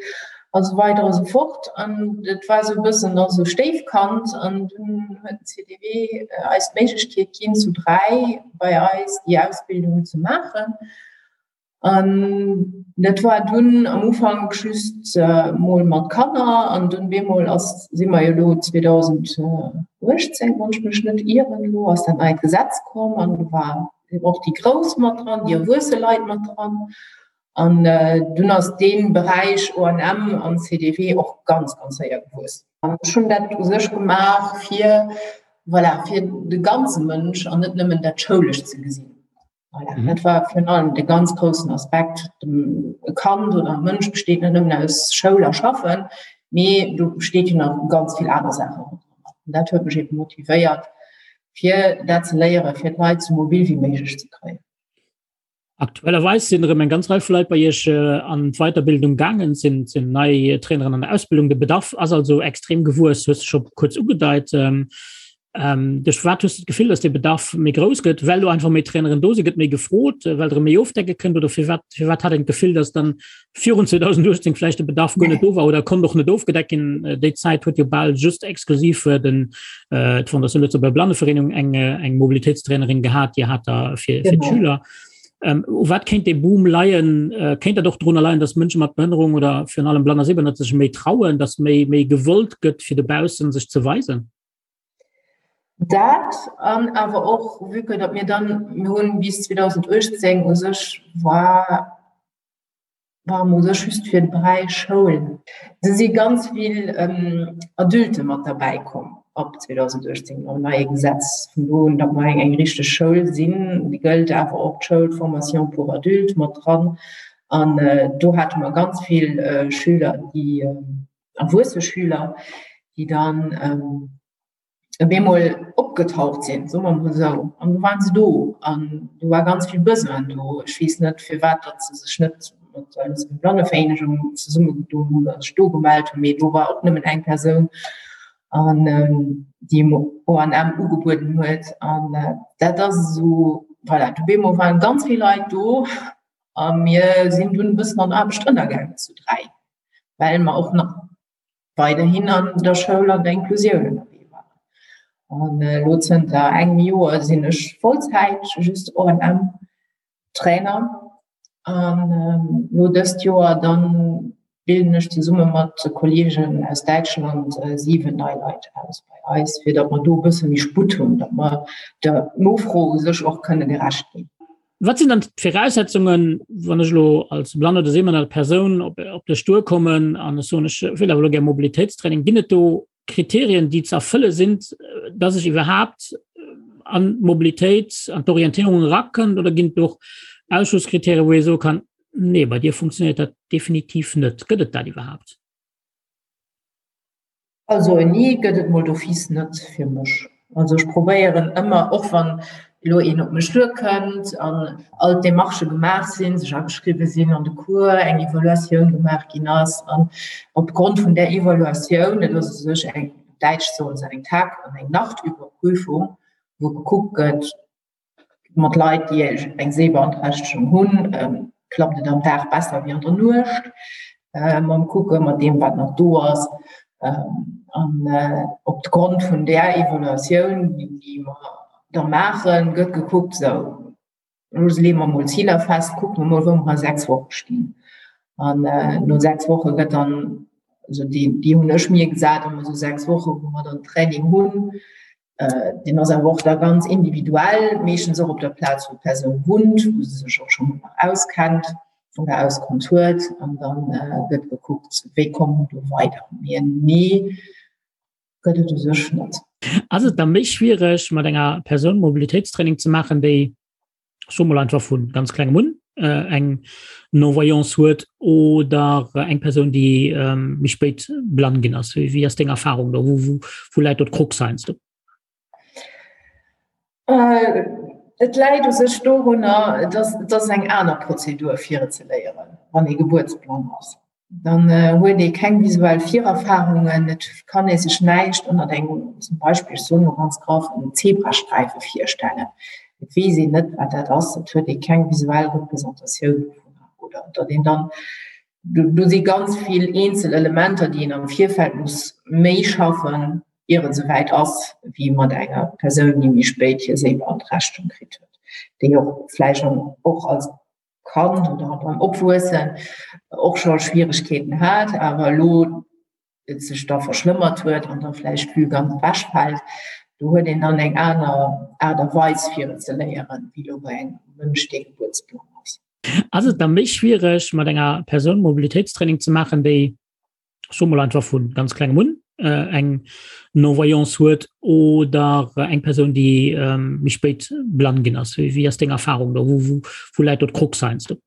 Speaker 10: a sou weider a sou fort. An et war esou e bëssen da sou Stéifkand an dunn huet den CDW eis d'Méiglechkeet ginn, zu 3 bei eis déi Ausbildung ze maachen. An dat war dunn am Ufank just mol mat Kanner an dunn bemol ass, si mer jo elo 2018, wann ech mech net ieren elo, ass dat neit Gesetz komm an do war och déi Grouss mat dran, déi erwuesse Leit mat dran. An dunn ass dee Beräich ONM an CDW och ganz, ganz séier gewuess. An ech hunn dat u sech gemaach fir, voilà, fir de ganze Mënsch an net nëmmen dat Schoulescht ze gesinn. Voilà, mhm. Dat war virun allem de ganz groussen Aspekt. E Kand oder e Mënsch besteet net nëmmen aus Schoul a Schaffen, mee do besteet jo nach ganz vill aner Saachen. Und dat huet mech eben motivéiert, fir dat ze léieren, fir d'Leit sou mobil wéi méiglech ze kréien.
Speaker 3: Aktuellerweis sinn erëm eng ganz Rei vu Leit bei Iech äh, an d'Weiterbildung gaangen, sinn sinn nei Traineren an der Ausbildung. De Bedarf ass also extrem gewuess, hues du scho kuerz ugedeit. Ähm, Ähm, duerch wat hues du d'Gefill, dass de Bedarf méi grouss gëtt, well do einfach méi Traineren do si, gëtt méi gefrot, äh, well der méi ofdecke kënnt oder fir wat fir wat hat een d'Gefill, dass dann virun 2018 vläicht de Bedarf guer net do war oder konnt och net ofgedeckt ginn? Äh, déi Zäit huet jo bal just exklusiv äh, den äh, d'Fondation Lëtzebuerger Blannevereenigung eng äh, eng Mobilitéitstrainerin gehat, déi hat da fir, fir d'Schüler. Ähm, u wat kéint dee Boom leien? Äh, kéint dat och drunner leien, dass Mënsche mat Behënnerung oder virun allem Blann a Sehbehënnert sech méi trauen, dass méi méi gewollt gëtt, fir dobaussen sech ze weisen?
Speaker 10: Dat an awer och, vue que datt mir dann, mir hunn bis 2018 u sech war, ware mer u sech just fir de Beräich Schoul. Do si ganz vill Adulte mat derbäi komm ab 2018 mam neie Gesetz vun do un, datt mer eng eng richteg Schoul sinn. Déi gëllt awer och d'Schoul d'Formation pour adultes mat dran. An do hate mer ganz vill Schüler, déi erwuesse Schüler, déi dann ähm, op eemol opgetaucht sinn, soe mer mol esou. An du waren se do an do war ganz vill Besoin do. Ech weess net, firwat datt se sech net mat der Lëtzebuerger Blannevereenigung zesummegedoen hunn oder sech do gemellt hunn, mee do war och nëmmen eng Persoun an ähm, déi ONM ugebueden huet. An äh, dat ass esou, voilà, du bemol waren ganz vill Leit do a mir sinn dunn e bëssen an Aarbecht ënnergaangen zu 3. well mer och nach weiderhin an der Schoul an der Inklusioun ënnerwee waren. An elo zënter engem Joer sinn ech Vollzäit just ONM Trainer an elo dëst Joer dann bilden ech zesumme mat Kollegen aus Däitschland 7 nei Leit aus bei eis, fir datt mer do e bësse méi Sputt hunn, datt mer der Nofro u sech och kënne gerecht ginn.
Speaker 3: Wat sinn dann d'Viraussetzungen, wann ech elo als blann oder sehbehënnert Persoun op, op dech duerkommen an ech soen, ech wëll awer elo gär Mobilitéitstraining? Ginn et do Kriterien, déi ze erfëlle sinn, dass ech iwwerhaapt an d'Mobilitéit, an d'Orientéierung erakënnt? Oder ginn et och Ausschlusskriterien, wou ee soe kann, nee, bei dir funktionéiert dat definitiv net? Gëtt et dat iwwerhaapt?
Speaker 10: Also en Nee gëtt et mol d'office net fir mech. Also ech probéieren ëmmer, och wann elo een op mech duerkënnt an all d'Demarchë gemaach sinn, sech ageschriwwe sinn an de Cours, eng Evaluatioun gemaach ginn ass an opgrond vun där Evaluatioun, dat ass u sech eng, op Däitsch soen se eng Tag an eng Nachtüberprüfung, wou gekuckt gëtt, Mat Leit, déi eng Sehbeanträchtegung hunn, klappt et am Dag besser wéi an der Nuecht. Mam Kucke mat deem, wat nach do ass. An op Grond vun där Evaluatioun, déi mer da maachen, gëtt gekuckt, sou, elo leeë mer mol Ziler fest, kucke mer mol, wou mer a 6 Woche stinn. An no 6 Woche gëtt dann, also déi hunn ech mir gesat, ëmmer sou 6 Woche, wou mer dann Training hunn, Deen ass awer och da ganz individuell, meeschtens och op der Plaz, wou d'Persoun wunnt, wou se sech och schonn auskennt oder auskonnt huet. An da gëtt gekuckt, wéi komme mer do weider. Mee en Nee gëtt et u sech net.
Speaker 3: Ass et da méi schwiereg, mat enger Persoun Mobilitéitstraining ze maachen, déi ech soe mol einfach vu ganz klengem un eng Non-Voyance huet oder eng Persoun, déi méi spéit blann ginn ass? Wéi ass deng Erfahrung do? Wou, wou läit do d'Krux heiansdo?
Speaker 10: Et läit u sech dorunner, dass et ass eng aner Prozedur fir et ze léieren, wann ee gebuertsblann ass. Dann huet ee keng visuell Virerfarungen, et kann ee sech näischt ënnert engem, zum Beispill, ech soen elo ganz graff, engem Zebrasträife virstellen. Et weess een net, wat dat ass, et huet ee keng visuell Representatioun dovunner. Oder datt een dann, do si ganz vill eenzel Elementer, déi een am Virfeld muss méi schaffen, ier et esouwäit ass, wéi mat enger Persoun, déi méi spéit hir Séibeanträchtegung kritt huet, déi och vläicht och als Kand oder beim Opwuessen och scho Schwieregkeeten hat, awer elo et sech da verschlëmmert huet an da vläicht d'Vue ganz ewechfält. Do huet een dann eng aner Aart a Weis fir et ze léieren, wéi elo bei engem Mënsch, dee gebuertsblann ass.
Speaker 3: Ass et da méi schwiereg, mat enger Persoun Mobilitéitstraining ze maachen, déi ech soe mol einfach vu ganz klengem un eng Non-Voyance huet oder eng Persoun, déi méi spéit blann ginn ass? Wéi ass deng Erfahrung do? Wou, wou läit do d'Krux heiansdo?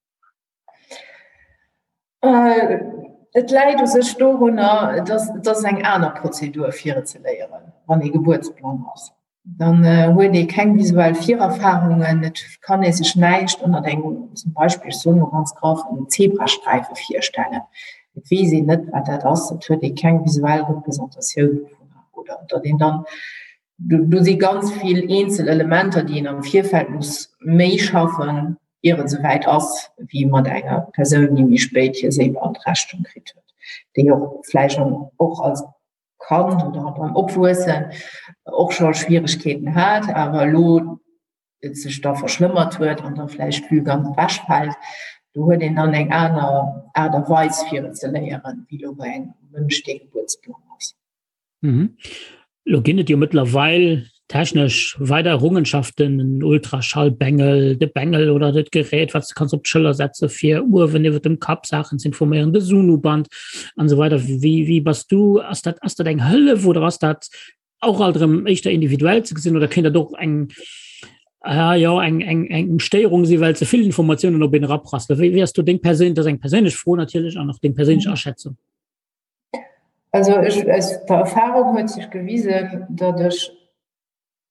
Speaker 10: Et läit u sech dorunner, dass et ass eng aner Prozedur fir et ze léieren, wann ee gebuertsblann ass. Dann huet ee keng visuell Virerfarungen, et kann ee sech näischt ënnert engem, zum Beispill, ech soen elo ganz graff, engem Zebrasträife virstellen. Et weess een net, wat dat ass, et huet ee keng visuell Representatioun dovunner. Oder datt een dann, do si ganz vill eenzel Elementer, déi een am Virfeld muss méi schaffen, ier et esouwäit ass, wéi mat enger Persoun, déi méi spéit hir Séibeanträchtegung kritt huet, déi och vläicht och als Kand oder beim Opwuessen och scho Schwieregkeeten hat, awer elo et sech da verschlëmmert huet an da vläicht d'Vue ganz ewechfält. Do huet een dann eng aner Aart a Weis fir et ze léieren, wéi elo bei engem Mënsch, dee gebuertsblann ass.
Speaker 3: Elo ginn et jo mëttlerweil technesch weider Errungenschaften, en Ultraschallbengel, de Bengel oder dat Gerät, wat s de kanns op d'Schëller setze fir uewen iwwer dem Kapp Saachen ze informéieren, de Sono-Band an esou weider. Wéi, wéi bass du? Ass dat, ass dat eng Hëllef oder ass dat och alt erëm éischter individuell ze gesinn oder kéint dat och eng, ah, jo, eng, eng, eng Stéierung si well ze vill Informatiounen op een eraprasselen? Wéi, wéi ass do deng perséin, dat ass eng perséinlech Fro natierlech an och deng perséinlech Aschätzung?
Speaker 10: Also ech, aus der Erfahrung huet sech gewisen, datt ech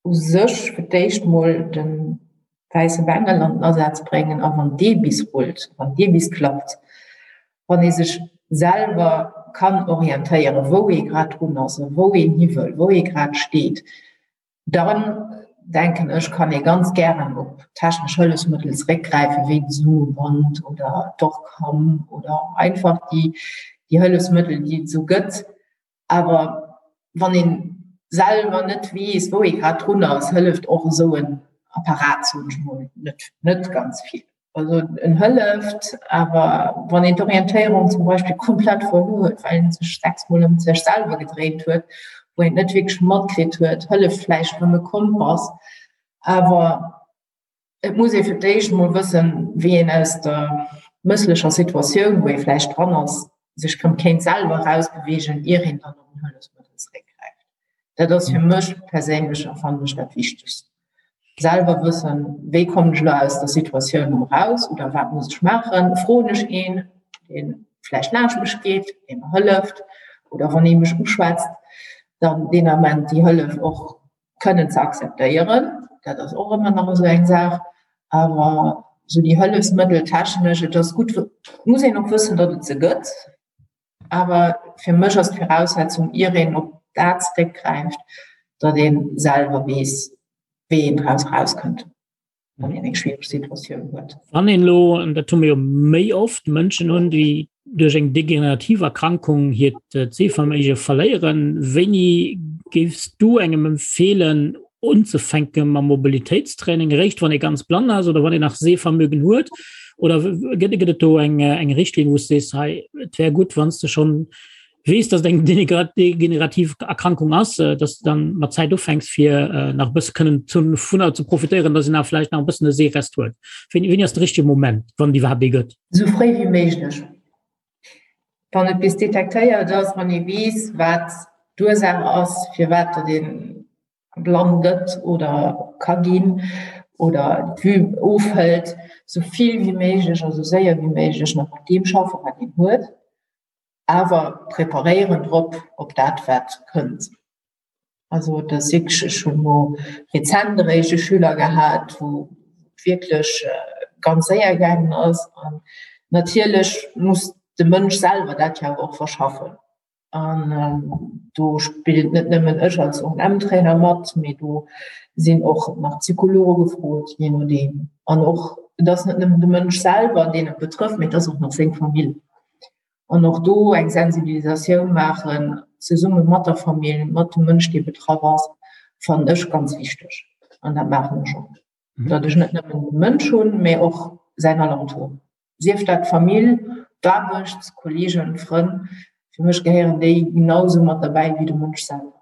Speaker 10: u sech fir d'éischt mol de wäisse Bengel an den Asaz bréngen a wann dee bis rullt, wann dee bis klappt, wann ee sech selwer kann orientéieren, wou ee grad drun ass a wou een hi wëll, wou ee grad steet, Dann, denken ech, kann ee ganz gären op technesch Hëllefsmëttel zeréckgräifen, wéi de Zoom-Band oder d'Orcam oder einfach déi, déi Hëllefsmëttel, déi et esou gëtt. Awer wann ee selwer net weess, wou ee grad drun ass, hëlleft och esou en Apparat, soen ech mol, net, net ganz vill. Also en hëlleft, awer wann een d'Orientéierung zum Beispill komplett verluer huet, well een sech sechsmol ëm sech selwer gedréint huet, wou een et net wierklech matkritt huet, hëlleft vläicht erëm e Kompass. Awer Et muss ee fir d'éischt emol wëssen, wéi een aus der mësslecher Situatioun, wou ee vläicht dran ass, sech erëm kéint selwer erausbeweegen, ier een dann op en Hëllefsmëttel zeréckgräift. Dat ass fir mech perséinlech a fannen ech dat Wichtegst. Selwer wëssen, wéi kommen ech elo aus der Situatioun erëm eraus oder wat muss ech maachen? Froen ech een, dee vläicht laanscht mech geet, dee mer hëlleft oder wann ee mech uschwätzt, dann deen Ament déi Hëllef och kënnen ze akzeptéieren. Dat ass och ëmmer nach esou eng Saach. Awer esou déi Hëllefsmëttel technesch, et ass gutt, et muss een och wëssen, datt et se gëtt. Awer fir mech ass d'Viraussetzung, ier een op dat zeréckgräift, datt ee selwer weess, wéi een draus erauskënnt. wann een eng schwiereg Situatioun huet.
Speaker 3: Wann een elo, an dat hu mir jo méi oft, Mënschen hunn, déi duerch eng degenerativ Erkrankung hiert Sehverméige verléieren, wéini géifs du engem empfeelen unzefänke mam Mobilitéitstraining? Eréischt wann ee ganz blann ass oder wann een nach Sehvermögen huet? Oder gëtt et do eng Richtlinn, wou s de sees, hei et wär gutt, wann s de schonn weess, dass et eng degenerativ Erkrankung ass, äh, dass du dann mat Zäit ufänks fir äh, nach bësse kënnen dovunner ze profitéieren, dass een nach vläicht nach e bëssen e Seerest huet. Wéini, wéini ass de richtege Moment, wann déi iwwerhaapt ee gëtt?
Speaker 10: Esou fréi wéi méiglech. Wann et bis detektéiert ass, wann ee weess, wat d'Ursaach ass, firwat datt ee blann gëtt oder ka ginn oder d'Vue ofhëlt, esou vill wéi méiglech a sou séier wéi méiglech nach mat deem schaffen, wat een huet. awer preparéieren drop op dat wat kënnt. Also et ass wierklech, ech hunn elo rezent eréischt e Schüler gehat, wou et wierklech ganz séier gaangen ass an natierlech muss de Mënsch selwer dat jo awer och verschaffen an do spillt net nëmmen ech als ONM-Trainer mat, mee do sinn och nach Psychologe gefrot, jee nodeem an och et ass net nëmmen de Mënsch selwer, deen et betrëfft, mee et ass och nach seng Famill. An och do eng Sensibilisatioun maachen, zesumme mat der Famill, mat dem Mënsch, dee betraff ass, fannen ech ganz wichteg. An dat maachen ech och. Datt ech net nëmmen de Mënsch hunn, mä och säin Alentour. Sief dat d'Famill, d'Aarbecht, Kolleegen, Frënn. Fir mech gehéieren déi genau esou mat derbäi wéi de Mënsch selwer.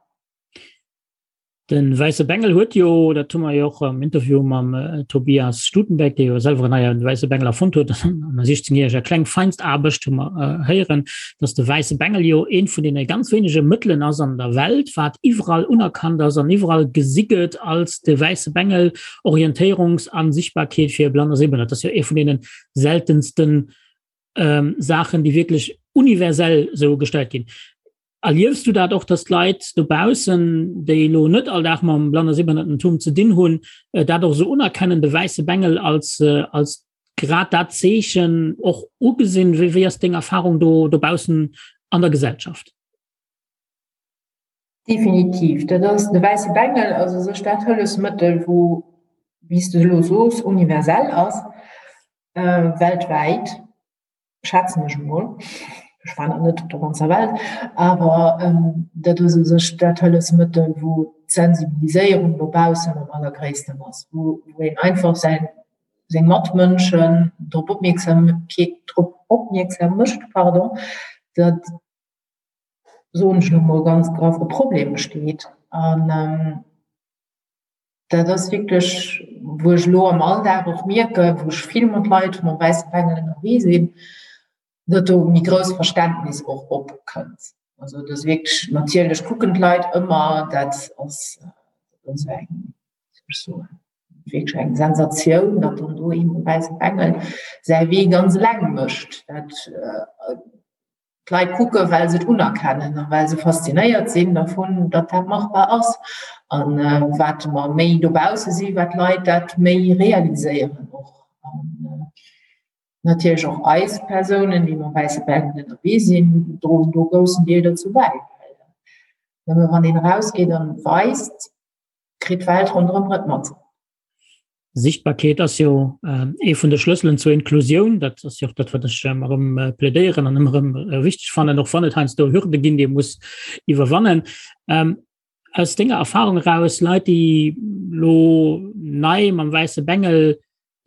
Speaker 3: De wäisse Bengel huet jo, dat hu mer jo och am Interview mam Tobias Stutenberg, dee jo selwer en neie wäisse Bengel erfonnt huet an der 16 järeger kleng Feinstaarbecht, hu mer héieren, datt de wäisse Bengel jo eent vun deene ganz wéinege Mëttelen ass an der Welt, wat iwwerall unerkannt ass an iwwerall gesi gëtt als de wäisse Bengel, Orientéierungs a Sichtbarkeet fir Blann a Sehbehënnert. Dat ass jo ee vun deene seltensten Saachen, déi wierklech universell esou gestallt ginn. Erliefs du dat och, dass d'Leit dobaussen, déi elo net all Dag mam Blann a Sehbehënnertentum ze dinn hunn, dat och esou unerkennen, de wäisse Bengel als, als grad dat Zeechen och ugesinn? Wéi, wéi ass deng Erfahrung do dobaussen an der Gesellschaft?
Speaker 10: Definitiv, dat ass de wäisse Bengel ass u sech dat Hëllefsmëttel, wou, wéi s de elo soos, universell ass, weltwäit. schätzen ech emol, ech war nach net op der ganzer Welt, awer dat ass u sech dat Hëllefsmëttel, wou d'Sensibiliséierung dobaussen am allergréissten ass, wou een einfach säin, seng Matmënschen drop opmierksam, drop opmierksam mécht, pardon, datt, soen ech elo mol ganz graff, e Problem besteet. An Dat ass wierklech, wou ech elo am Alldag och mierken, wou ech vill mat Leit mam wäisse Bengel ënnerwee sinn, datt do méi grouss Verständnis och opkënnt. Also et ass wierklech, natierlech kucken d'Leit ëmmer, dat ass esou eng, wéi soll ech soen, wierklech eng Sensatioun, datt dann do ee mam wäisse Bengel säi Wee ganz eleng mécht. Dat D'Leit kucken, well se et unerkennen a well se faszinéiert sinn dervun, datt dat machbar ass. A wat mer méi dobausse sinn, wat d'Leit dat méi realiséieren och. An natierlech och eis Persounen, déi mam wäisse Bengel ënnerwee sinn, droen do e groussen Deel dozou bäi. Well nëmme wann een erausgeet an et weist, kritt d'Welt ronderëm et mat.
Speaker 3: Sichtbarkeet ass jo ee vun de Schlësselen zur Inklusioun. Dat ass jo och dat, wat ech ëmmer erëm plädéieren an ëmmer erëm wichteg fannen, och wann et heiansdo Hürde ginn, déi ee muss iwwerwannen. Aus denger Erfahrung eraus, Leit, déi elo nei mam wäisse Bengel.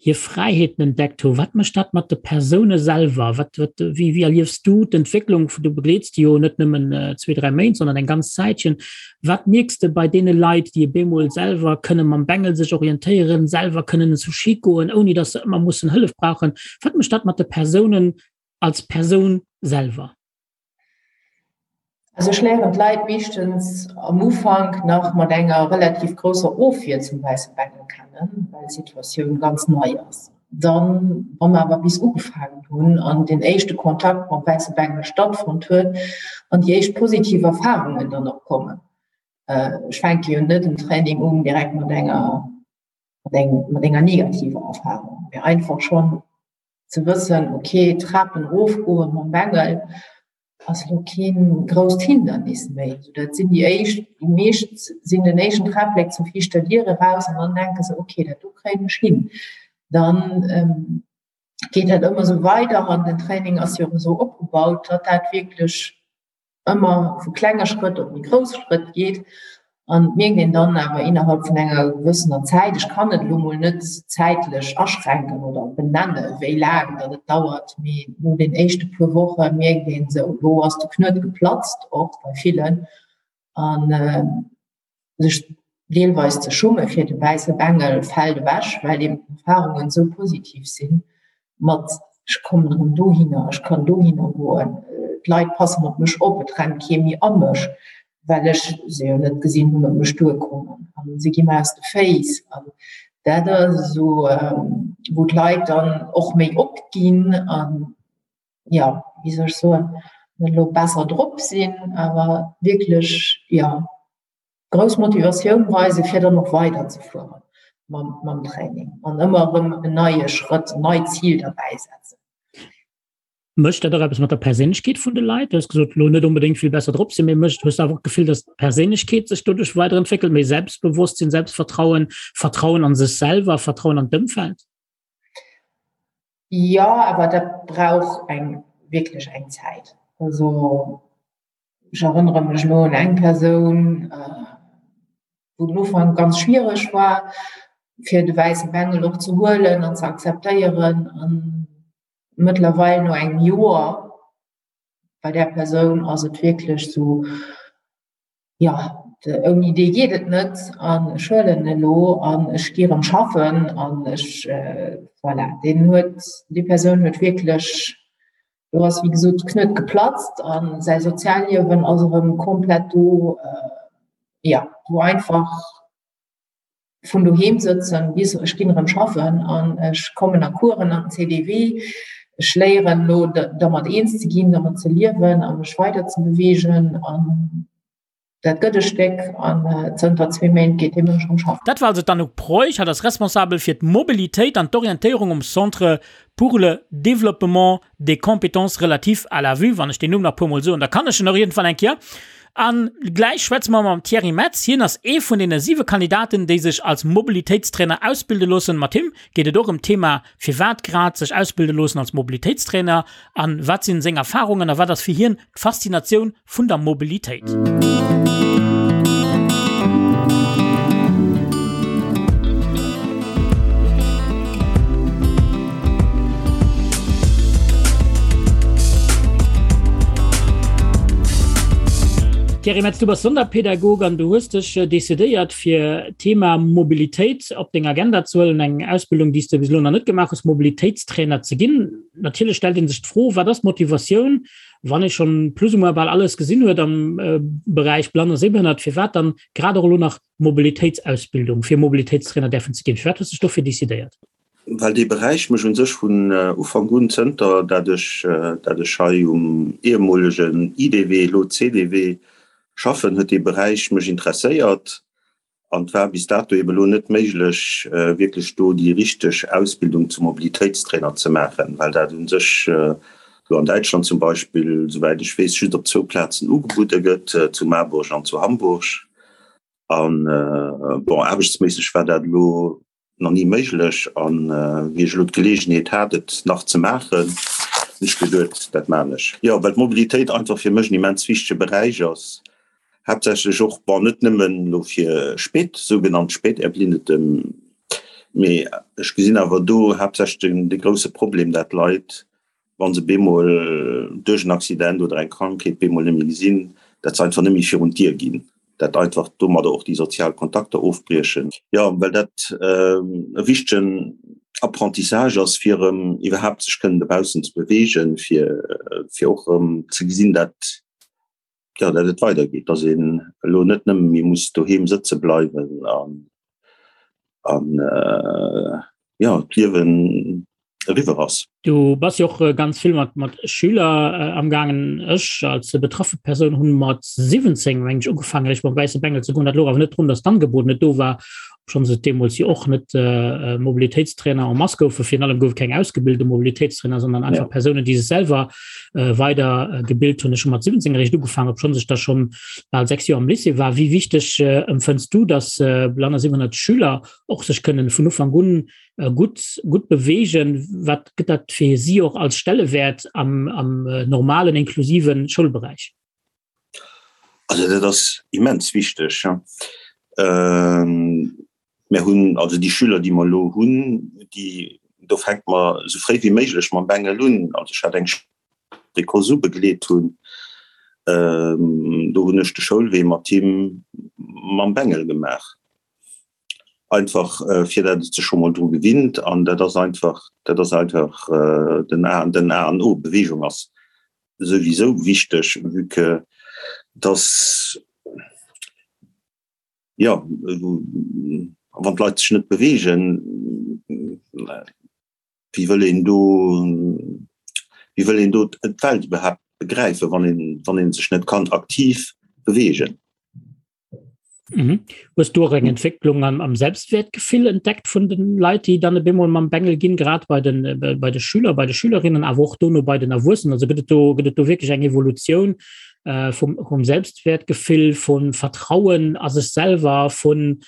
Speaker 3: Hir Fräiheeten entdeckt hu. Wat mécht dat mat de Persoune selwer? Wat, wat, wéi, wéi erliefs du d'Entwécklung? Du begleets déi jo net nëmmen zwee, dräi Méint, sondern eng ganz Zäitchen. Wat mierks de bei deene Leit, déi op eemol selwer kënne mam Bengel sech orientéieren, selwer kënnen zu Ski goen, ouni datt se ëmmer mussen Hëllef brauchen? Wat mécht dat mat de Persounen als Persoun selwer?
Speaker 10: Also ech léieren d'Leit meeschtens am Ufank nach mat enger relativ grousser Ofwier zum wäisse Bengel kennen, well d'Situatioun ganz nei ass. Dann, wa mer awer bis ugefaangen hunn an deen éischte Kontakt mam wäisse Bengel stattfonnt huet an déi éischt positiv Erfarungen dann och kommen. Ech fänke jo net en Training un direkt mat enger, mat enger negativer Erfarung, mee einfach schonn ze wëssen, ok, Trapen erofgoen mam Bengel ass elo keen grousst Hindernis méi. Sou dat sinn déi éischt, déi meescht sinn den éischten Trapléck zur viischter Dier eraus an dann denke se, ok, dat do kréien ech hin. Dann geet dat ëmmer sou weider an den Training ass jo och esou opgebaut, datt dat wierklech ëmmer vu klenge Schrëtt op méi grouss Schrëtt geet an et mierkt een dann awer innerhalb vun enger gewëssener Zäit, ech kann et elo mol net zäitlech aschränken oder benenne wéi laang datt et dauert, mee no den éischte puer Woche mierkt een esou, elo ass de Knuet geplatzt, och bei villen an sech deelweis ze schumme fir de wäisse Bengel fält ewech, well eben d'Erfarungen esou positiv sinn mat ech kommen erëm dohinner, ech kann dohinner goen, d'Leit passen op mech op, et rennt kee méi a mech, well ech se jo net gesinn hunn, op mech duerkommen an se gi mer aus de Féiss. An dat ass esou, wou d'Leit dann och méi opginn an, jo, wéi soll ech soen, net elo besser drop sinn, awer wierklech, jo, grouss Motivatioun weisen, fir dann och weiderzefuere mam, mam Training an ëmmer erëm en neie Schrëtt, en neit Zil derbäi setzen.
Speaker 3: Mécht dat och eppes mat der Perséinlechkeet vun de Leit? Du hues gesot, elo net onbedéngt vill besser drop sinn, mee mécht, hues du awer och d'Gefill, datt d'Perséinlechkeet sech doduerch weiderentwéckelt, méi Selbstbewosstsinn, Selbstvertrauen, Vertrauen an sech selwer, Vertrauen an d'Ëmfeld?
Speaker 10: Jo, awer dat brauch eng wierklech eng Zäit. Also ech erënnere mech elo un eng Persoun, wou den Ufank ganz schwiereg war, fir de wäisse Bengel och ze huelen an ze akzeptéieren. An mëttlerweil no engem Joer bei där Persoun ass et wierklech esou, jo, ouni dee geet et net an ech huelen en elo an ech gi erëm schaffen an ech, voilà, deen huet, déi Persoun huet wierklech, do ass wéi gesot de Knuet geplatzt a säi Sozialliewen ass erëm komplett do, jo, wou einfach vun doheem sëtzen bis ech ginn erëm schaffen an ech kommen a Coursen an CDW. Ech léieren elo dermat eens ze ginn, dermat ze liewen a mech weider ze beweegen an dat gëtt e Stéck an zënter zwee Méint geet dee Mënsch erëm schaffen.
Speaker 3: Dat war also d'Anouk Preuch. Hatt ass responsabel fir d'Mobilitéit an d'Orientéierung um Centre pour le développement des compétences relatives à la vue, wann ech deen Numm nach puermol soen, da kann ech en och iergendwann eng Kéier. A gläich schwätze mer mam Thierry Metz. Hien ass ee vun deene siwe Kandidaten, déi sech als Mobilitéitstrainer ausbilde loossen. Mat him geet et och ëm d'Thema, firwat grad sech ausbilde loossen als Mobilitéitstrainer a wat sinn seng Erfarungen a wat ass fir hien d'Faszinatioun vun der Mobilitéit. Thierry Metz, du bass Sonderpädagog an du hues dech decidéiert fir d'Thema Mobilitéit op deng Agenda ze huelen, eng Ausbildung, déi s de bis elo nach net gemaach hues, Mobilitéitstrainer ze ginn. Natierlech stellt ee sech d'Fro, Wat ass d'Motivatioun Wann ee schonn plus ou moins bal alles gesinn huet am Beräich Blann a Sehbehënnert, firwat dann grad och elo nach Mobilitéitsausbildung, fir Mobilitéitstrainer däerfen ze ginn? Firwat hues de dech dofir decidéiert?
Speaker 11: Well dee Beräich mech u sech vun Ufank un, zënter dat ech dat ech hei um ehemolegen IDW, elo CDW, schaffen, huet dee Beräich mech interesséiert. An et war bis dato eben elo net méiglech, wierklech do déi richteg Ausbildung zum Mobilitéitstrainer ze maachen, well dat u sech elo an Däitschland zum Beispill, souwäit ech weess, just op zwou Plazen ugebudde gëtt, zu Marburg an zu Hamburg. An, bon, aarbechtsméisseg war dat elo nach ni méiglech an wéi ech elo d'Geleegenheet hat et nach ze maachen, hunn ech geduet, dat maan ech. Jo, well d'Mobilitéit einfach fir mech en immens wichtege Beräich ass, haaptsächlech och, bon, net nëmmen elo fir spät, sougenannt Späterblindete. Mee ech gesinn awer do haaptsächlech den, de grousse Problem, dat d'Leit, wa se bemol duerch en Accident oder eng Krankheet bemol net méi gesinn, dat se einfach net méi virun d'Dier ginn, dat einfach domadder och déi sozial Kontakter ofbriechen. Jo, well dat e wichtegen Apprentissage ass, fir erëm iwwerhaapt sech kënnen dobaussen ze beweegen, fir, fir och erëm ze gesinn, dat, jo, dat et weidergeet, dass een elo net nëmme méi muss doheem sëtze bleiwen an, an jo, d'Liewen eriwwer ass.
Speaker 3: Du bass jo och ganz vill mat mat Schüler amgaangen. Ech als betraffe Persoun hunn mat 17 meng ech ugefaangen eréischt mam wäisse Bengel ze goen. Dat louch awer net drun, datt d'Angebot net do war, obschonns et deemools jo och net Mobilitéitstrainer en masse goufen. Virun allem gouf et keng ausgebilte Mobilitéitstrainer, sondern einfach Persounen, déi sech selwer weider gebilt hunn. Ech hu mat 17 eréischt ugefaangen, obschonns ech da schonn bal 6 Joer am Lycée war. Wéi wichteg empfënns du, datt blann a 700 Schüler och sech kënnen vun Ufank un gutt gutt beweegen? Wat gëtt dat fir si och als Stellewäert am am normalen inklusiven Schoulberäich?
Speaker 11: Also dat ass immens wichteg. Mir hunn also déi Schüler, déi mer elo hunn, déi do fänke mer esou fréi wéi méiglech mam Bengel un. Also ech hat eng déi Kosu begleet hunn, do hunn ech de Schoulwee mat him mam Bengel gemaach. Einfach fir dat et sech scho mol dru gewinnt an dat ass einfach, dat ass einfach den A, den A an O. Beweegung ass souwisou wichteg, vue que dass, jo, wann d'Leit sech net beweegen, wéi wëll een do, wéi wëll een do d'Welt iwwerhaapt begräifen, wann een, wann een sech net kann aktiv beweegen?
Speaker 3: Mhm. Hues du och eng Entwécklung am, am Selbstwertgefill entdeckt vun den Leit, déi dann e bemol mam Bengel ginn, grad bei den, äh, bei de Schüler, bei de Schülerinnen, awer och dono bei den Erwuessenen? Also gëtt et do, gëtt et do wierklech eng Evolutioun äh, vum, vum Selbstwertgefill, vun Vertrauen a sech selwer, vun,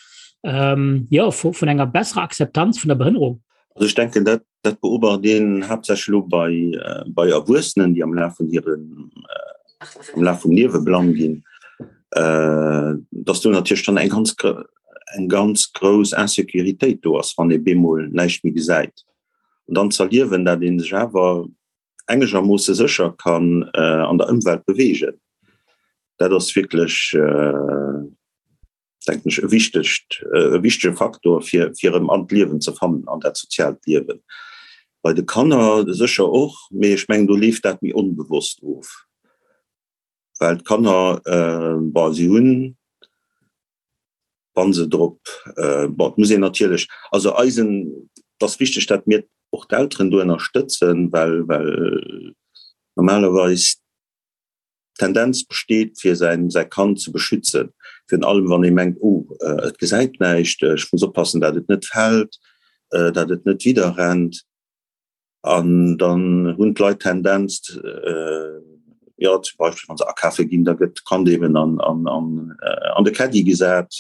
Speaker 3: ähm, ja, vu, vun enger besserer Akzeptanz vun der Behënnerung?
Speaker 11: Also ech denken, dat Dat beobacht een haaptsächlech elo bei, bei Erwuessenen, déi am Laf vun hirem, am Laf vum Liewe blann ginn, dass do natierlech dann eng ganz, eng ganz grouss Insécuritéit do ass, wann ee bemol näischt méi gesäit. An dann z'erliewen, dat ee sech awer engegermoosse sécher kann an der Ëmwelt beweegen, dat ass wierklech, denken ech, e wichtegt, e wichtege Faktor, fir, fir erëm an d'Liewen ze fannen, an dat soziaalt Liewen. Bei de Kanner sécher och, mee ech mengen, do leeft dat méi onbewosst of, well d'Kanner, bon, si hunn, wa se drop, bon, et muss een natierlech, also eisen, et ass wichteg, dat mir och d'Elteren do ënnerstëtzen, well, well normalerweis D'Tendenz besteet, fir säin säi Kand ze beschützen, virun allem wann ee mengt, oh, et gesäit näischt, ech muss oppassen, dat et net fält, dat et net widderrennt. An dann hunn d'Leit d'Tendenz, jo, zum Beispill wa se akafe ginn, da gëtt d'Kand eben an an an de Caddie gesat.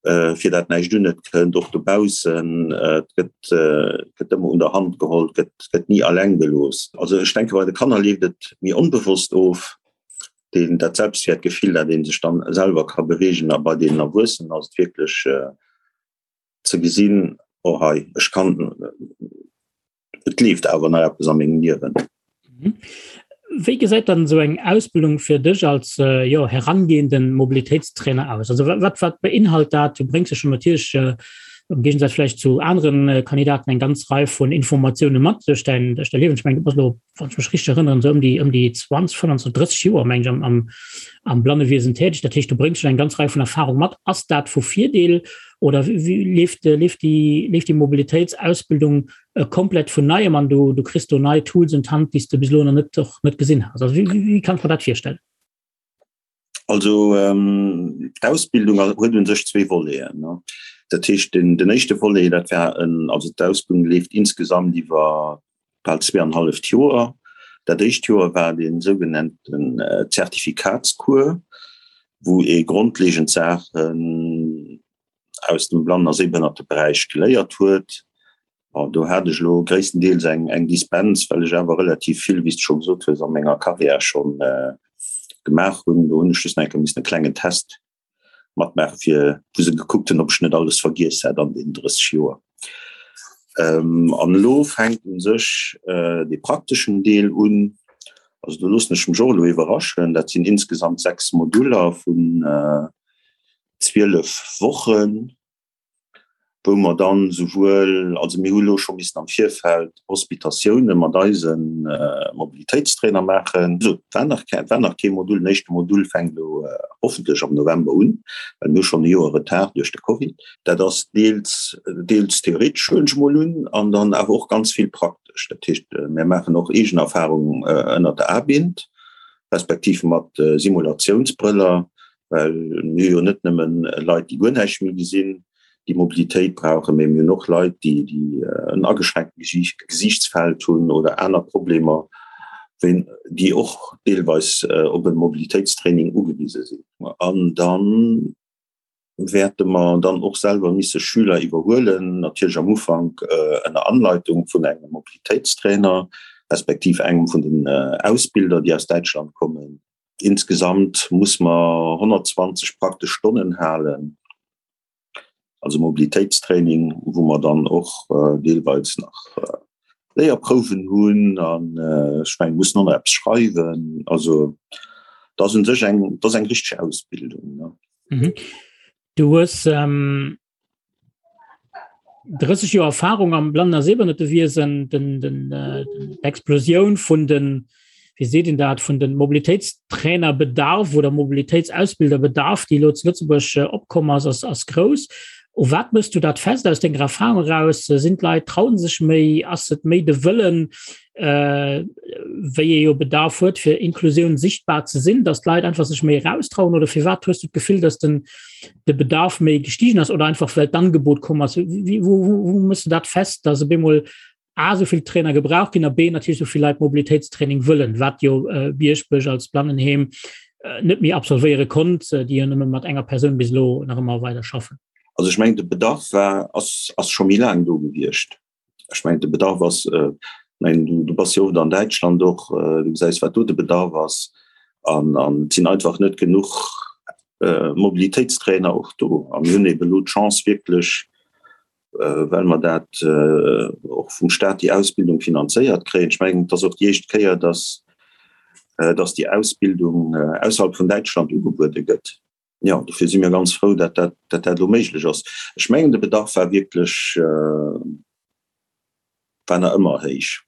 Speaker 11: fir dat näischt un et kënnt, och dobaussen, et gëtt, gëtt ëmmer un der Hand geholl, gëtt, gëtt ni alleng gelooss. Also ech denke bei de Kanner leeft et méi onbewosst of, deen, dat Selbstwäertgefill, dat ee sech dann selwer ka beweegen a bei deenen Erwuessenen ass et wierklech ze gesinn, oh hei, ech kann, Et leeft awer nach eppes a mengem Liewen.
Speaker 3: Mhm. Wéi gesäit dann esou eng Ausbildung fir dech als äh, jo, herangehenden Mobilitéitstrainer aus? Also wat, wat beinhalt dat? Du bréngs jo schon natierlech äh, am Gegensatz vielleicht zu anderen äh, Kandidaten eng ganz Rei vun Informatioune mat duerch dein, duerch dein Liewen. Ich mein, du bass lo, wann ich mech richtig erinnern, so um déi, um déi 20, 25, 30 Joer meng ich am, am, am Blannewesen tätig. Dat heescht, du bréngs schon eng ganz Rei vun Erfahrung mat. Ass dat vu Virdeel oder wéi leeft, leeft déi, leeft déi Mobilitéitsausbildung äh, komplett vun neiem an du, du kriss do nei Tools un d'Hand, déi s de bis elo nach net, och net gesinn has? Also wéi, wéi kann ech mer dat virstellen?
Speaker 11: Also ähm, d'Ausbildung huet un sech zwee Voleten. Ne? Dat heescht, den, den éischte Volet, dat war en, also d'Ausbildung leeft insgesamt iwwer bal zweeanenhalleft Joer. Dat éischt Joer war dee sougenannten Zertifikatscours, wou ee grondlegend Saachen aus dem Blannen a Sehbehënnerteberäich geléiert huet. Bon, do hat ech elo gréisstendeels eng, eng Dispens, well ech awer relativ vill, wéi s de scho gesot hues, a menger Karriär scho gemaach hunn. Do hunn ech just nach eng Kéier missen e klengen Test matmaachen, fir wou se gekuckt hunn, ob ech net alles vergiess hätt an deenen 30 Joer. An elo fänkt u sech dee prakteschen Deel un. Also do loossen ech mech och elo iwwerraschen. Dat sinn insgesamt 6 Moduller vun 12 Wochen, wou mer dann souwuel, also mir hu elo scho missen am Virfeld Hospitatioune mat eise Mobilitéitstrainer maachen. Also et war nach war nach kee Modul. Den éischte Modul fänkt elo hoffentlech am November un, well mir hu schonn e Joer Retard duerch de Covid. Dat ass deels, deels theoretesch, huelen ech emol un, an dann awer och ganz vill praktesch. Dat heescht, mir maachen och eegen Erfahrung ënnert der A-Bind, respektiv mat Simulatiounsbrëller, well mir hu jo net nëmmen Leit, déi guer näischt méi gesinn, déi Mobilitéit brauchen, mee mir hunn och Leit, déi, déi en ageschränkte Gesiichtsfeld hunn oder aner Problemer, wéi, déi och deelweis op e Mobilitéitstraining ugewise sinn. An dann wäerte mer dann och selwer misse Schüler iwwerhuelen, natierlech am Ufank ënner Anleitung vun engem Mobilitéitstrainer, respektiv engem vun den Ausbilder, déi aus Däitschland kommen. Insgesamt muss mer 120 praktesch Stonnen halen, also Mobilitéitstraining, wou mer dann och deelweis nach Léierprouwen hunn an ech mengen, mussen och nach eppes schreiwen. Also dat ass u sech eng, dat ass eng richteg Ausbildung.
Speaker 3: Mhm. Du hues ähm, 30 Joer Erfahrung am Blannen a Sehbehinnertewiesen, den, den, äh, d'Explosioun vun den, wéi seet een dat, vun den Mobilitéitstrainerbedarf oder Mobilitéitsausbilderbedarf, déi elo zu Lëtzebuerg äh, opkomm ass, ass, ass grouss. U wat mëss du dat fest aus denger Erfahrung eraus? Sinn d'Leit, trauen sech méi? Ass et méi de Wëllen, äh, wéi ee jo Bedarf huet, fir Inklusioun sichtbar ze sinn, dass d'Leit einfach sech méi eraustrauen? Oder firwat hues du d'Gefill, dass den, de Bedarf méi gestiegen ass oder einfach well d'Angebot komm ass? Wie, wo, wo, wo mëss du dat fest, dass op eemol A sou vill Trainer gebraucht ginn a B natierlech sou vill Leit Mobilitéitstraining wëllen, wat jo äh, Bierschbech als Blannenheem äh, net méi absolvéiere konnt, äh, déi jo nëmme mat enger Persoun bis elo nach ëmmer weider schaffen?
Speaker 11: Also ech mengen de Bedarf war ass, ass scho méi laang do gewiescht. Ech mengen de Bedarf ass, äh, mengen du, du bass jo oft an Däitschland och, äh, du gesäis wat do de Bedarf ass an an et sinn einfach net genuch äh, Mobilitéitstrainer och do. A mir hunn ebe lo d'Chance wierklech, äh, well mer dat äh, och vum Staat déi Ausbildung finanzéiert kréien. Ech mengen et ass och déi éischt Kéier, dass, äh, dass déi Ausbildung äh, ausserhalb vun Däitschland ugebuede gëtt. Jo, dofir si mir ganz frou, dat dat, dat dat elo méiglech ass. Ech mengen, de Bedarf war wierklech, war nach ëmmer héich.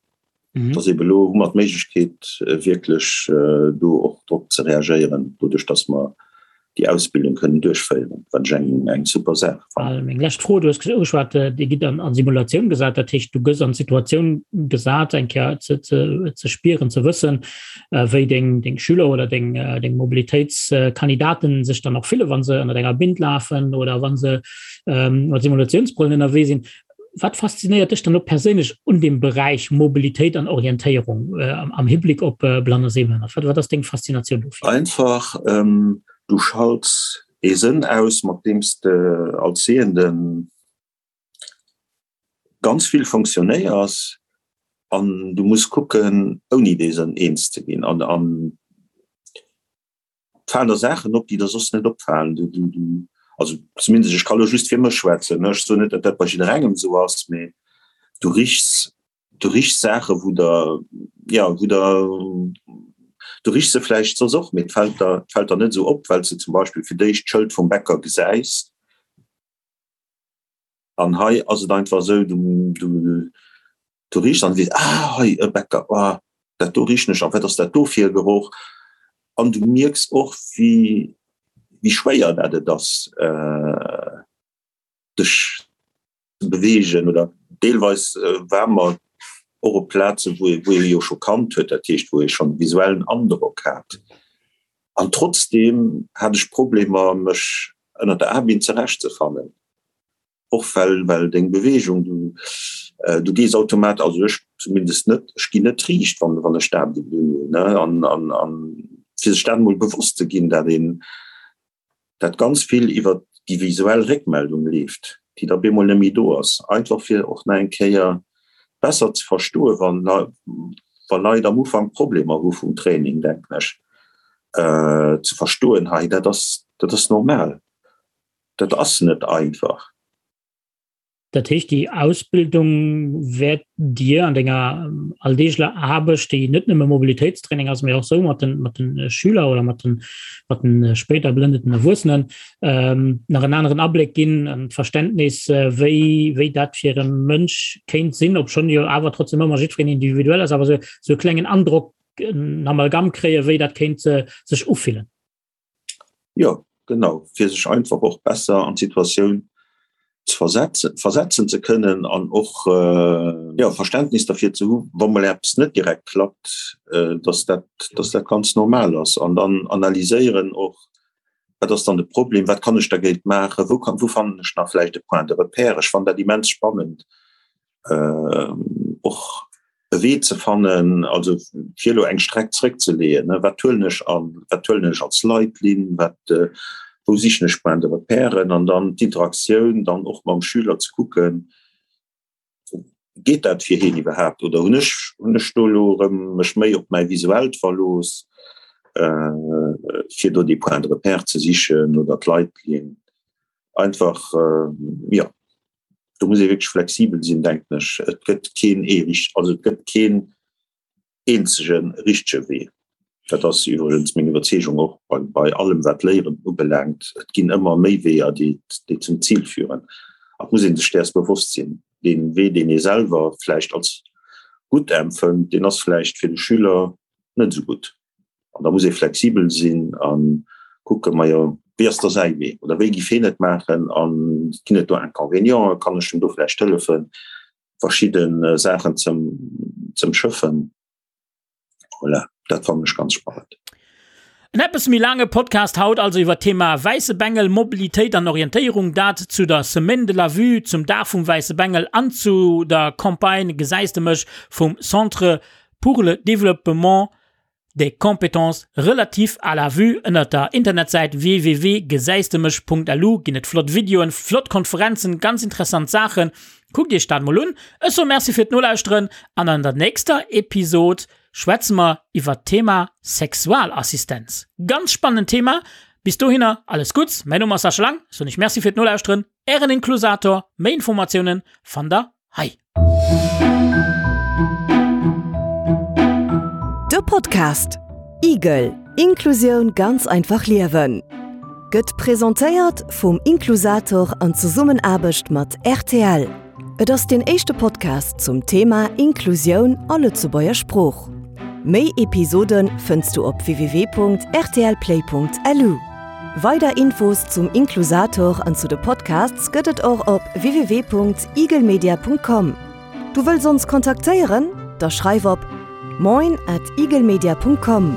Speaker 11: Mhm. Dass ebe elo hu mer d'Méiglechkeet, wierklech do och drop ze reagéieren, doduerch dass mer déi Ausbildung kënnen duerchféieren, wat ech eng, eng super Saach
Speaker 3: fannen. Meng lescht Fro, Du hues ugeschwat, Dir gitt an, an Simulatioun gesat, dat heescht, du gëss an d'Situatioun gesat, eng Kéier ze, ze, ze spieren, ze wëssen, wéi deng, deng Schüler oder deng, deng Mobilitéitskandidaten sech dann och fille, wa se ënner enger Bind lafen oder wa se ähm, mat Simulatiounsbrëllen ënnerwee sinn. Wat faszinéiert dech dann och perséinlech un dem Beräich Mobilitéit an Orientéierung äh, am, am Hibblick op äh, Blann a Sehbehënnert? Wat, wat ass deng Faszinatioun
Speaker 11: dofir? Einfach, ähm, du schalts ee Sënn aus, mat deem s de als Sehenden ganz vill fonctionnéiers an du muss kucken ouni dee Sënn eens ze ginn an an et falen der Saachen op, déi der soss net opfalen. Du, du, du, also zumindest ech ka lo just fir mech schwätzen, ne, ech soen net, datt dat bei jidderengem esou ass, mee du richs, du richs Saache wou der, ja, wou der, du richs se vläicht soss och, mee et fält der, et fält der net esou op, well s de zum Beispill fir d'éischt d'Schëld vum Bäcker gesäis. An hei ass et einfach esou, du, du, du riechs an weess, ah, hei e Bäcker, ah, dat do richen ech, a wat ass dat do fir e Geroch? An du mierks och, wéi, wéi schwéier dat et ass, dech ze beweegen. Oder deelweis ware mer och op Plazen, wou ee, wou ee jo scho kannt huet, dat heescht, wou ee schonn e visuellen Androck hat. An trotzdeem hat ech Problemer, mech ënner der A-Binn zurechtzefannen, och well, well deng Beweegung, du, du gees automat, also ech zumindest net, ech ginn net riicht, wann, wann ech d'A-Binn unhunn, ne, an, an, an fir sech dat emol bewosst ze ginn, dat een, dat ganz vill iwwer déi visuell Réckmeldung leeft, déi da bemol net méi do ass, einfach fir och nach eng Kéier besser ze verstoen, wann, wa Leit am Ufank Problemer hu vum Training, denken ech, ze verstoen, hei dat ass, dat ass normal, dat ass net einfach.
Speaker 3: Dat heescht, déi Ausbildung wäert dir an denger alldeegler Aarbecht, déi net nëmme Mobilitéitstraining ass, mee och sou mat den, mat den Schüler oder mat den, mat den spéider blëndeten Erwuessenen, nach en aneren Abléck ginn, en Verständnis, wéi, wéi dat fir e Mënsch kéint sinn, obschonn jo awer trotzdem ëmmer jiddwereen individuell ass, awer sou, sou e klengen Androck, en Amalgam kréien, wéi dat kéint sech ufillen.
Speaker 11: Jo, genau, fir sech einfach och besser an d'Situatioun ze versetzen, versetzen ze kënnen an och, jo, Verständnis derfir ze hu wa mol eppes net direkt klappt, dass dat, dass dat ganz normal ass. An dann analyséieren och, wat ass dann de Problem, wat kann ech dergéint maachen, wou kann, wou fannen ech nach vläicht e Point de repère. Ech fannen dat immens spannend, och e Wee ze fannen, also fir elo eng Streck zréckzeleeën, wat huelen ech an, wat huelen ech als Leitlinn, wat, wou sichen ech Point de repèren an dann d'Interaktioun dann och mam Schüler ze kucken, geet dat fir hien iwwerhaapt oder hunn ech, hunn ech do elo erëm mech méi op mäi Visuellt verlooss, fir do déi Point de repère ze sichen oder d'Leitlinn einfach, jo. Do muss ee wierklech flexibel sinn, denken ech. Et gëtt keen ee richt-, also et gëtt keen eenzege richtege Wee. Dat ass iwwregens meng Iwwerzeegung och bei, bei allem wat Léieren ubelaangt. Et ginn ëmmer méi Weeër, déi, déi zum Zil führen. A et muss ee sech däers bewosst sinn, Dee Wee, deen ee selwer vläicht als gutt empfënnt, deen ass vläicht fir de Schüler net esou gutt. An da muss ee flexibel sinn a kucken, majo, wéi ass da säi Wee oder wéi giff hien et maachen a ginn et do Inconvénienten, kann ech em do vläicht hëllefen, verschidde Saachen ze ëmschëffen. Voilà, dat fannen ech ganz spannend.
Speaker 3: En eppes méi laange Podcast haut also iwwer d'Thema Wäisse Bengel, Mobilitéit an Orientéierung, dat zu der Semaine de la Vue, zum Dag vum Wäisse Bengel an zu der Campagne Gesäis de mech vum Centre pour le développement des compétences relatives à la vue. Ënnert der Internetsäit www.gesäisdemech.lu ginn et flott Videoen, flott Konferenzen, ganz interessant Saachen. Kuckt iech dat mol un. Ech soe Merci fir d'Nolauschteren an an der nächster Episod schwätze mer iwwert d'Thema Sexualassistenz. Ganz spannend Thema. Bis dohinner alles Gutts. Mäin Numm ass Sascha Lang. Ech soen iech Merci fir d'Nolauschteren. Ären Inklusator. Méi Informatiounen fannt der hei.
Speaker 2: De Podcast Igel, Inklusioun ganz einfach liewen gëtt presentéiert vum Inklusator an Zesummenaarbecht mat rtl. Et ass deen éischte Podcast zum Thema Inklusioun a Lëtzebuerger Sprooch. Méi Episode fënns du op www.rtlplay.lu. Weider Infos zum Inklusator an zu de Podcasts gëtt et och op www.igelmedia.com. Du wëlls ons kontaktéieren? Da schreif op moin at igelmedia.com.